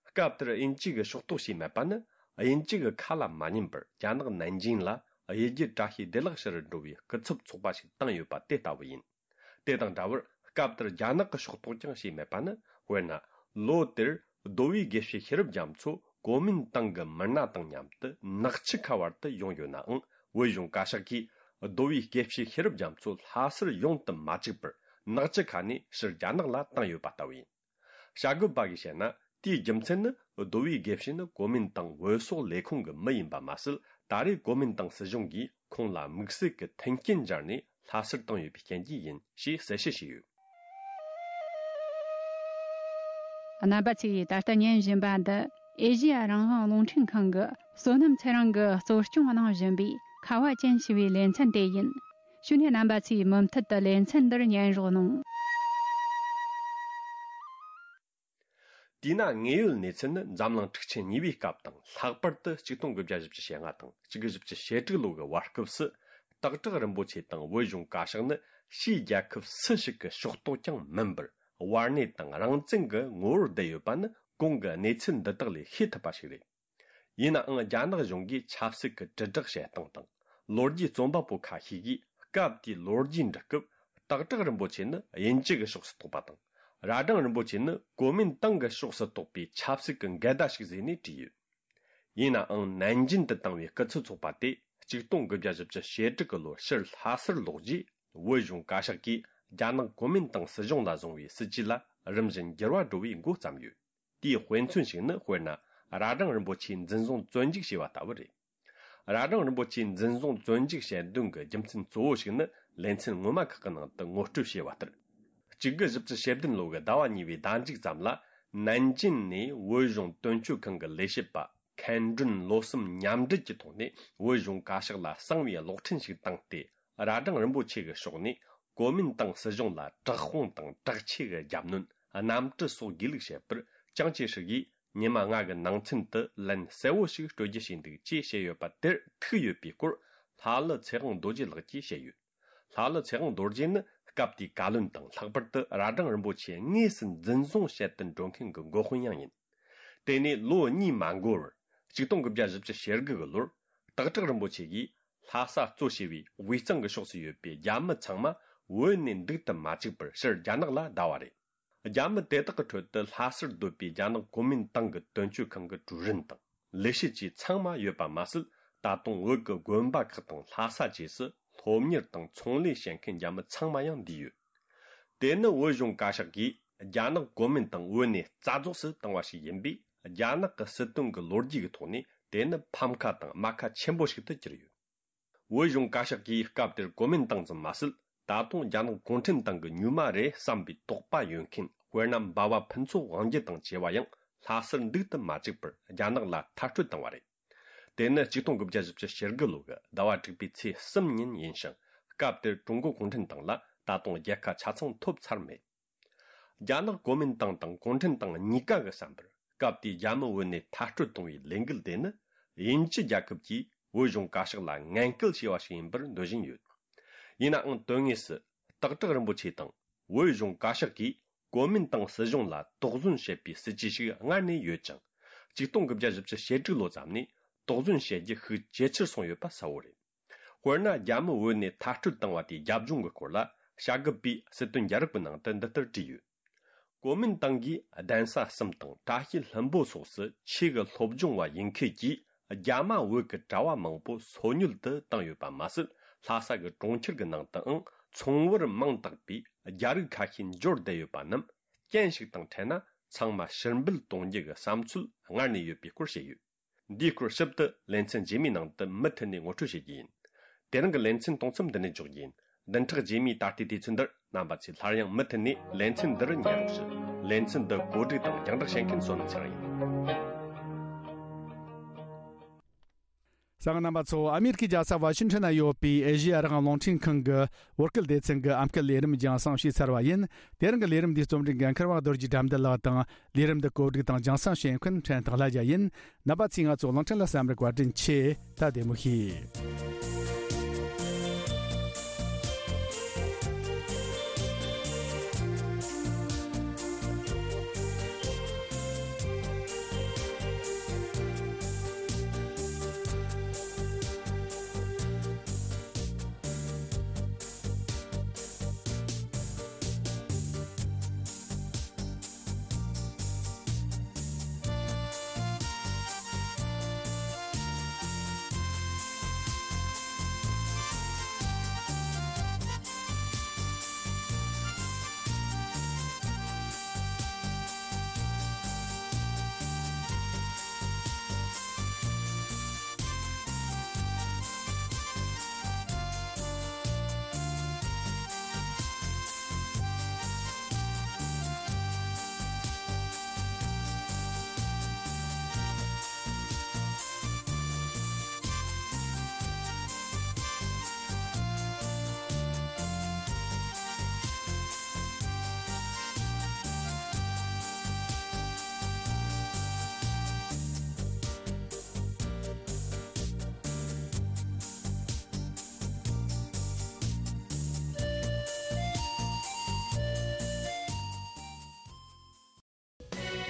སྐབས་དེར་དབྱིན་ཇི་གིས་ཕྱོགས་གཏོགས་བྱས་མེད་པ་ནི། དབྱིན་ཇི་གི་ཁ་ལ་མ་ཉན་པར་རྒྱ་ནག་ནན་ཅིང་ལ་གཡུལ་རྒྱལ་བཀྲ་ཤིས་བདེ་ལེགས་ཞུ་རུ་འགྲོ་བའི་སྐུ་ཚབ་ཚོགས་པ་ཞིག་བཏང་ཡོད་པ་དེ་ལྟ་བུ་ཡིན། དེ་དང་འདྲ་བར་སྐབས་དེར་རྒྱ་ནག་གི་ཕྱོགས་གཏོགས་ཀྱང་བྱས་མེད་པ་ནི། དཔེར་ན། ལོ་དེར་རྡོ་བའི་དགེ་བཤེས་ཤེས་རབ་རྒྱ་མཚོ་གོ་མིན་ཏང་གི་མི་སྣ་དང་མཉམ་དུ་ནག་ཆུ་ཁ་བར་དུ་ཡོང་ཡོད་ནའང་། བོད་གཞུང་བཀའ་ཤག་གིས་རྡོ་བའི་དགེ་བཤེས་ཤེས་རབ་རྒྱ་མཚོ་ལྷ་སར་ཡོང་དུ་མ་བཅུག་པར། ནག་ཆུ་ཁ་ནས་ཕྱིར་རྒྱ་ནག་ལ་བཏང་ཡོད་པ་ལྟ་བུ་ཡིན། བྱ་དགོས་པ་གིས་བཤད་ན། དེའི་རྒྱུ་མཚན་ནི། རྡོ་བའི་དགེ་བཤེས་ནི་གོ་མིན་ཏང་བོད་སོག་ལས་ཁུངས་ཀྱི་མི་ཡིན་པ་མ་ཟད། ད་རེས་གོ་མིན་ཏང་སྲིད་གཞུང་གིས་ཁོང་ལ་དམིགས་བསལ་གྱི་མཐུན་རྐྱེན་སྦྱར་ནས་ལྷ་སར་བཏང་ཡོད་པའི་རྐྱེན་གྱིས་ཡིན་ཞེས་གསལ་བཤད་བྱས་ཡོད། རྣམ་པ་ཚོས་ད་ལྟ་ཉན་བཞིན་པ་འདི་ཨེ་ཤེ་ཡ་རང་དབང་རླུང་འཕྲིན་ཁང་གི་བསོད་ནམས་ཚེ་རིང་གིས་གཙོ་སྐྱོང་གནང་བཞིན་པའི་ཁ་བ་ཅན་ཞེས་པའི་ལེ་ཚན་དེ་ཡིན། ཞུ་སྣེ་རྣམ་པ་ཚོས་མུ་མཐུད་དུ་ལེ་ཚན་འདིར་ཉན་རོགས་གནང་། དེས་ན་དངོས་ཡོད་གནས་ཚུལ་ནི་འཛམ་གླིང་འཁྲུག་ཆེན་གཉིས་པའི་སྐབས་དང་ལྷག་པར་དུ་ཆིག་སྟོང་དགུ་བརྒྱ་བཞི་བཅུ་ཞེ་ལྔ་དང་ཆིག་སྟོང་དགུ་བརྒྱ་བཞི་བཅུ་ཞེ་དྲུག་ལོ་གི་བར་སྐབས་སུ། སྟག་བྲག་རིན་པོ་ཆེ་དང་བོད་གཞུང་བཀའ་ཤག་ནི་ཕྱིའི་རྒྱལ་ཁབ་སུ་ཞིག་གི་ཕྱོགས་གཏོགས་ཀྱང་མིན་པར། དབར་གནས་དང་རང་བཙན་གྱི་ངོ་བོར་བསྡད་ཡོད་པ་ནི་གོང་གི་གནས་ཚུལ་འདི་དག་ལས་ཤེས་ཐུབ་པ་ཞིག་རེད། ཡིན་ནའང་རྒྱ་ནག་གཞུང་གིས་ཆབ་སྲིད་ཀྱི་དྲིལ་བསྒྲགས་བྱེད་སྟངས་དང་། ལོ་རྒྱུས་རྩོམ་པ་པོ་ཁ་ཤས་ཀྱིས་སྐབས་དེའི་ལོ་རྒྱུས་འབྲི་སྐབས། སྟག་བྲག་རིན་པོ་ཆེ་ནི་དབྱིན་ཇི་གི་ཕྱོགས་སུ་གཏོགས་པ་དང་། རྭ་སྒྲེང་རིན་པོ་ཆེ་ནི་གོ་མིན་ཏང་གི་ཕྱོགས་སུ་གཏོགས་པའི་ཆབ་སྲིད་ཀྱི་འགལ་ཟླ་ཞིག་བཟོས་ནས་བྲིས་ཡོད། ཡིན་ནའང་ནན་ཅིན་དུ་བཏང་བའི་སྐུ་ཚབ་ཚོགས་པ་དེ་ཆིག་སྟོང་དགུ་བརྒྱ་བཞི་བཅུ་ཞེ་དྲུག་གི་ལོར་ཕྱིར་ལྷ་སར་ལོག་རྗེས། བོད་གཞུང་བཀའ་ཤག་གིས་རྒྱ་ནག་གོ་མིན་ཏང་སྲིད་གཞུང་ལ་བཟུང་བའི་སྲིད་ཇུས་ལ་རིམ་བཞིན་འགྱུར་བ་འགྲོ་བའི་འགོ་བརྩམས་ཡོད། དེའི་དཔེ་མཚོན་ཞིག་ནི། དཔེར་ན། རྭ་སྒྲེང་རིན་པོ་ཆེའི་འཛིན་བཟུང་བཙོན་འཇུག་བྱས་པ་ལྟ་བུ་རེད། རྭ་སྒྲེང་རིན་པོ་ཆེའི་འཛིན་བཟུང་བཙོན་འཇུག་བྱེད་དོན་གྱི་རྒྱུ་མཚན་གཙོ་བོ་ཞིག་ནི། ལེ་ཚན་སྔོན་མ་ཁག་གི་ནང་དུ་ངོ་སྤྲོད་བྱས་པ་ལྟར། གཅིག་དགུ་བཞི་བཅུ་ཞེ་བདུན་ལོ་གི་ཟླ་བ་གཉིས་པའི་ཟླ་མཇུག་ཙམ་ལ། ནན་ཅིན་ནས་བོད་གཞུང་དོན་གཅོད་ཁང་གི་ལས་བྱེད་པ་མཁན་སྒྲོན་བློ་བསམ་མཉམ་འབྲེལ་གྱི་ཐོག་ནས་བོད་གཞུང་བཀའ་ཤག་ལ་གསང་བའི་གློག་འཕྲིན་ཞིག་བཏང་སྟེ། རྭ་སྒྲེང་རིན་པོ་ཆེ་གི་ཕྱོགས་ནས་གོ་མིན་ཏང་སྲིད་གཞུང་ལ་དྲག་དཔུང་དང་དྲག་ཆས་ཀྱི་རྒྱབ་གནོན། གནམ་གྲུ་སོགས་དགོས་ལུགས་བཤད་པར། ཅང་ཅེ་ཧྲི་ཡིས་ཉི་མ་ལྔ་གི་ནང་ཚུན་དུ་ལན་གསལ་བོ་ཞིག་སྤྲོད་རྒྱུ་བྱས་འདུག་ཅེས་བཤད་ཡོད་པ་དེར་ཐུག་ཡོད་པའི་སྐོར། ལྷ་ཀླུ་ཚེ་དབང་རྡོ་རྗེ་ལགས་ཀྱིས་བཤད་ཡོད། ལྷ་ཀླུ་ཚེ་དབང་རྡོ་རྗེ་ནི་སྐབས་དེའི་བཀའ་བློན་དང་། ལྷག་པར་དུ་རྭ་སྒྲེང་རིན་པོ་ཆེ་དངོས་སུ་འཛིན་བཟུང་བྱེད་དུ་འགྲོ་མཁན་གྱི་འགོ་དཔོན་ཡང་ཡིན། དེ་ནས་ལོ་གཉིས་མ་འགོར་བར། ཆིག་སྟོང་དགུ་བརྒྱ་བཞི་བཅུ་ཞེ་དགུ་གི་ལོར། སྟག་བྲག་རིན་པོ་ཆེ་གིས་ལྷ་ས་གཙོ་བྱས་པའི་དབུས་གཙང་གི་ཕྱོགས་སུ་ཡོད་པའི་རྒྱ་མི་ཚང་མ་བོད་ནས་འདུག་ཏུ་མ་བཅུག་པར་ཕྱིར་རྒྱ་ནག་ལ་བསྡད་པ་རེད། རྒྱ་མི་དེ་དག་གི་ཁྲོད་དུ་ལྷ་སར་སྡོད་པའི་རྒྱ་ནག་གོ་མིན་ཏང་གི་དོན་གཅོད་ཁང་གི་ཀྲུའུ་རིན་དང་ལས་བྱེད་བཅས་ཚང་མ་ཡོད་པ་མ་ཟད། ད་དུང་བོད་ཀྱི་དགོན་པ་ཁག་དང་ལྷ་ས་བཅས་སུ་སློབ་གཉེར་དང་ཚོང་ལས་བྱེད་མཁན་རྒྱ་མི་ཚང་མ་ཡང་འདུས་ཡོད། དེ་ནི་བོད་གཞུང་བཀའ་ཤག་གིས་རྒྱ་ནག་གོ་མིན་ཏང་བོད་ནས་རྩ་རྫོགས་སུ་བཏང་བ་ཞིག་ཡིན་པས། རྒྱ་ནག་གི་སྲིད་དོན་གྱི་ལོ་རྒྱུས་ཀྱི་ཐོག་ནས་དེ་ནི་ཕམ་ཁ་དང་རྨ་ཁ་ཆེན་པོ་ཞིག་ཏུ་གྱུར་ཡོད། བོད་གཞུང་བཀའ་ཤག་གིས་སྐབས་དེར་གོ་མིན་ཏང་ཙམ་མ་ཟད། ད་དུང་རྒྱ་ནག་གུང་ཁྲན་ཏང་གི་མྱུལ་མ་རེད་བསམ་པའི་དོགས་པ་ཡོད་མཁན། དཔེར་ན། འབའ་བ་ཕུན་ཚོགས་དབང་རྒྱལ་དང་བཅས་པ་ཡང་ལྷ་སར་འདུག་ཏུ་མ་བཅུག་པར་རྒྱ་ནག་ལ་མཐར་སྐྲོད་བཏང་བ་རེད། དེ་ནི་ཆིག་སྟོང་དགུ་བརྒྱ་བཞི་བཅུ་ཞེ་དགུ་ལོ་གི་ཟླ་བ་དྲུག་པའི་ཚེས་གསུམ་ཉིན་ཡིན་ཞིང་། སྐབས་དེར་ཀྲུང་གོ་གུང་ཁྲན་ཏང་ལ་ད་དུང་རྒྱལ་ཁ་ཆ་ཚང་ཐོབ་ཚར་མེད། རྒྱ་ནག་གོ་མིན་ཏང་དང་གུང་ཁྲན་ཏང་གཉིས་ཀ་གི་བསམ་པར། སྐབས་དེའི་རྒྱ་མི་བོད་ནས་མཐར་སྐྲོད་གཏོང་བའི་ལས་འགུལ་དེ་ནི། དབྱིན་ཇི་རྒྱལ་ཁབ་ཀྱིས་བོད་གཞུང་བཀའ་ཤག་ལ་ངན་སྐུལ་བྱས་པ་ཞིག་ཡིན་པར་འདོད་བཞིན་ཡོད། ཡིན་ནའང་དོན་དངོས་སུ། སྟག་བྲག་རིན་པོ་ཆེ་དང་བོད་གཞུང་བཀའ་ཤག་གིས་གོ་མིན་ཏང་སྲིད་གཞུང་ལ་དོགས་ཟོན་བྱེད་པའི་སྲིད་ཇུས་ཤིག་སྔར་ནས་ཡོད་ཅིང་། ཆིག་སྟོང་དགུ་བརྒྱ་བཞི་བཅུ་ཞེ་དྲུག་ལོ་ཙམ་ནས་དོགས་ཟོན་བྱེད་རྒྱུ་ཤུགས་ཇེ་ཆེར་སོང་ཡོད་པ་གསལ་བོ་རེད། དཔེར་ན། རྒྱ་མི་བོད་ནས་མཐར་སྐྲོད་བཏང་བ་དེའི་རྒྱབ་ལྗོངས་ཀྱི་སྐོར་ལ། བྱ་རྒོད་པས་སྲིད་དོན་རྒྱལ་རབས་ཀྱི་ནང་དུ་འདི་ལྟར་བྲིས་ཡོད། གོ་མིན་ཏང་གིས་གདན་ས་གསུམ་དང་བཀྲ་ཤིས་ལྷུན་པོ་སོགས་སུ་ཆོས་ཀྱི་སློབ་སྦྱོང་བ་ཡིན་མཁན་གྱིས་རྒྱ་མ་བོད་ཀྱི་གྲྭ་བ་མང་པོ་སོ་ཉུལ་དུ་བཏང་ཡོད་པ་མ་ཟད། ལྷ་ས་གི་གྲོང་ཁྱེར་གྱི་ནང་དུའང་ཚོང་བར་མིང་བཏགས་པའི་རྒྱ་རིགས་ཁ་ཤས་འབྱོར་བསྡད་ཡོད་པ་རྣམས་རྐྱེན་ཞིག་དང་འཕྲད་ན། ཚང་མ་ཕྱིར་འབུད་གཏོང་རྒྱུ་གི་བསམ་ཚུལ་སྔར་ནས་ཡོད་པའི་སྐོར་བཤད་ཡོད། འདིའི་སྐོར་ཞིབ་ཏུ་ལེ་ཚན་རྗེས་མའི་ནང་དུ་མུ་མཐུད་ནས་ངོ་སྤྲོད་བྱེད་རྒྱུ་ཡིན། དེ་རིང་གི་ལེ་ཚན་གཏོང་མཚམས་འདི་ནས་འཇོག་རྒྱུ་ཡིན། བདུན་ཕྲག་རྗེས་མའི་ད་ལྟའི་དུས་ཚོད་འདིར་རྣམ་པ་ཚོས་སླར་ཡང་མུ་མཐུད་ནས་ལེ་ཚན་འདི་རུ་ཉན་རོགས་ཞུ། ལེ་ཚན་འདི་གོ་སྒྲིག་དང་རྒྱང་བསྒྲགས་བྱེད་མཁན་བསོད་ནམས་ཚེ་རིང་ཡིན། གསན་མཁན་རྣམ་པ་ཚོ། ཨ་མེ་རི་ཁའི་རྒྱལ་ས་ཝ་ཤིང་ཊོན་ན་ཡོད་པའི་ཨེ་ཤེ་ཡ་རང་དབང་རླུང་འཕྲིན་ཁང་གི་བོད་སྐད་སྡེ་ཚན་གྱི་ཨམ་སྐད་ལས་རིམ་རྒྱང་སྲིང་བྱས་ཚར་བ་ཡིན། དེ་རིང་གི་ལས་རིམ་འདིའི་རྩོམ་སྒྲིག་འགན་འཁུར་བ་རྡོ་རྗེ་དགྲ་འདུལ་ལགས་དང་། ལས་རིམ་འདི་གོ་སྒྲིག་དང་རྒྱང་སྲིང་བྱེད་མཁན་ཕྲན་ཐང་ལྷ་རྒྱལ་ཡིན། རྣམ་པ་ཚོས་ང་ཚོ་གླིང་ཕྲན་ལ་བསམ་རིག་བཀའ་དྲིན་ཆེ། ད་བདེ་མོ་བྱོས།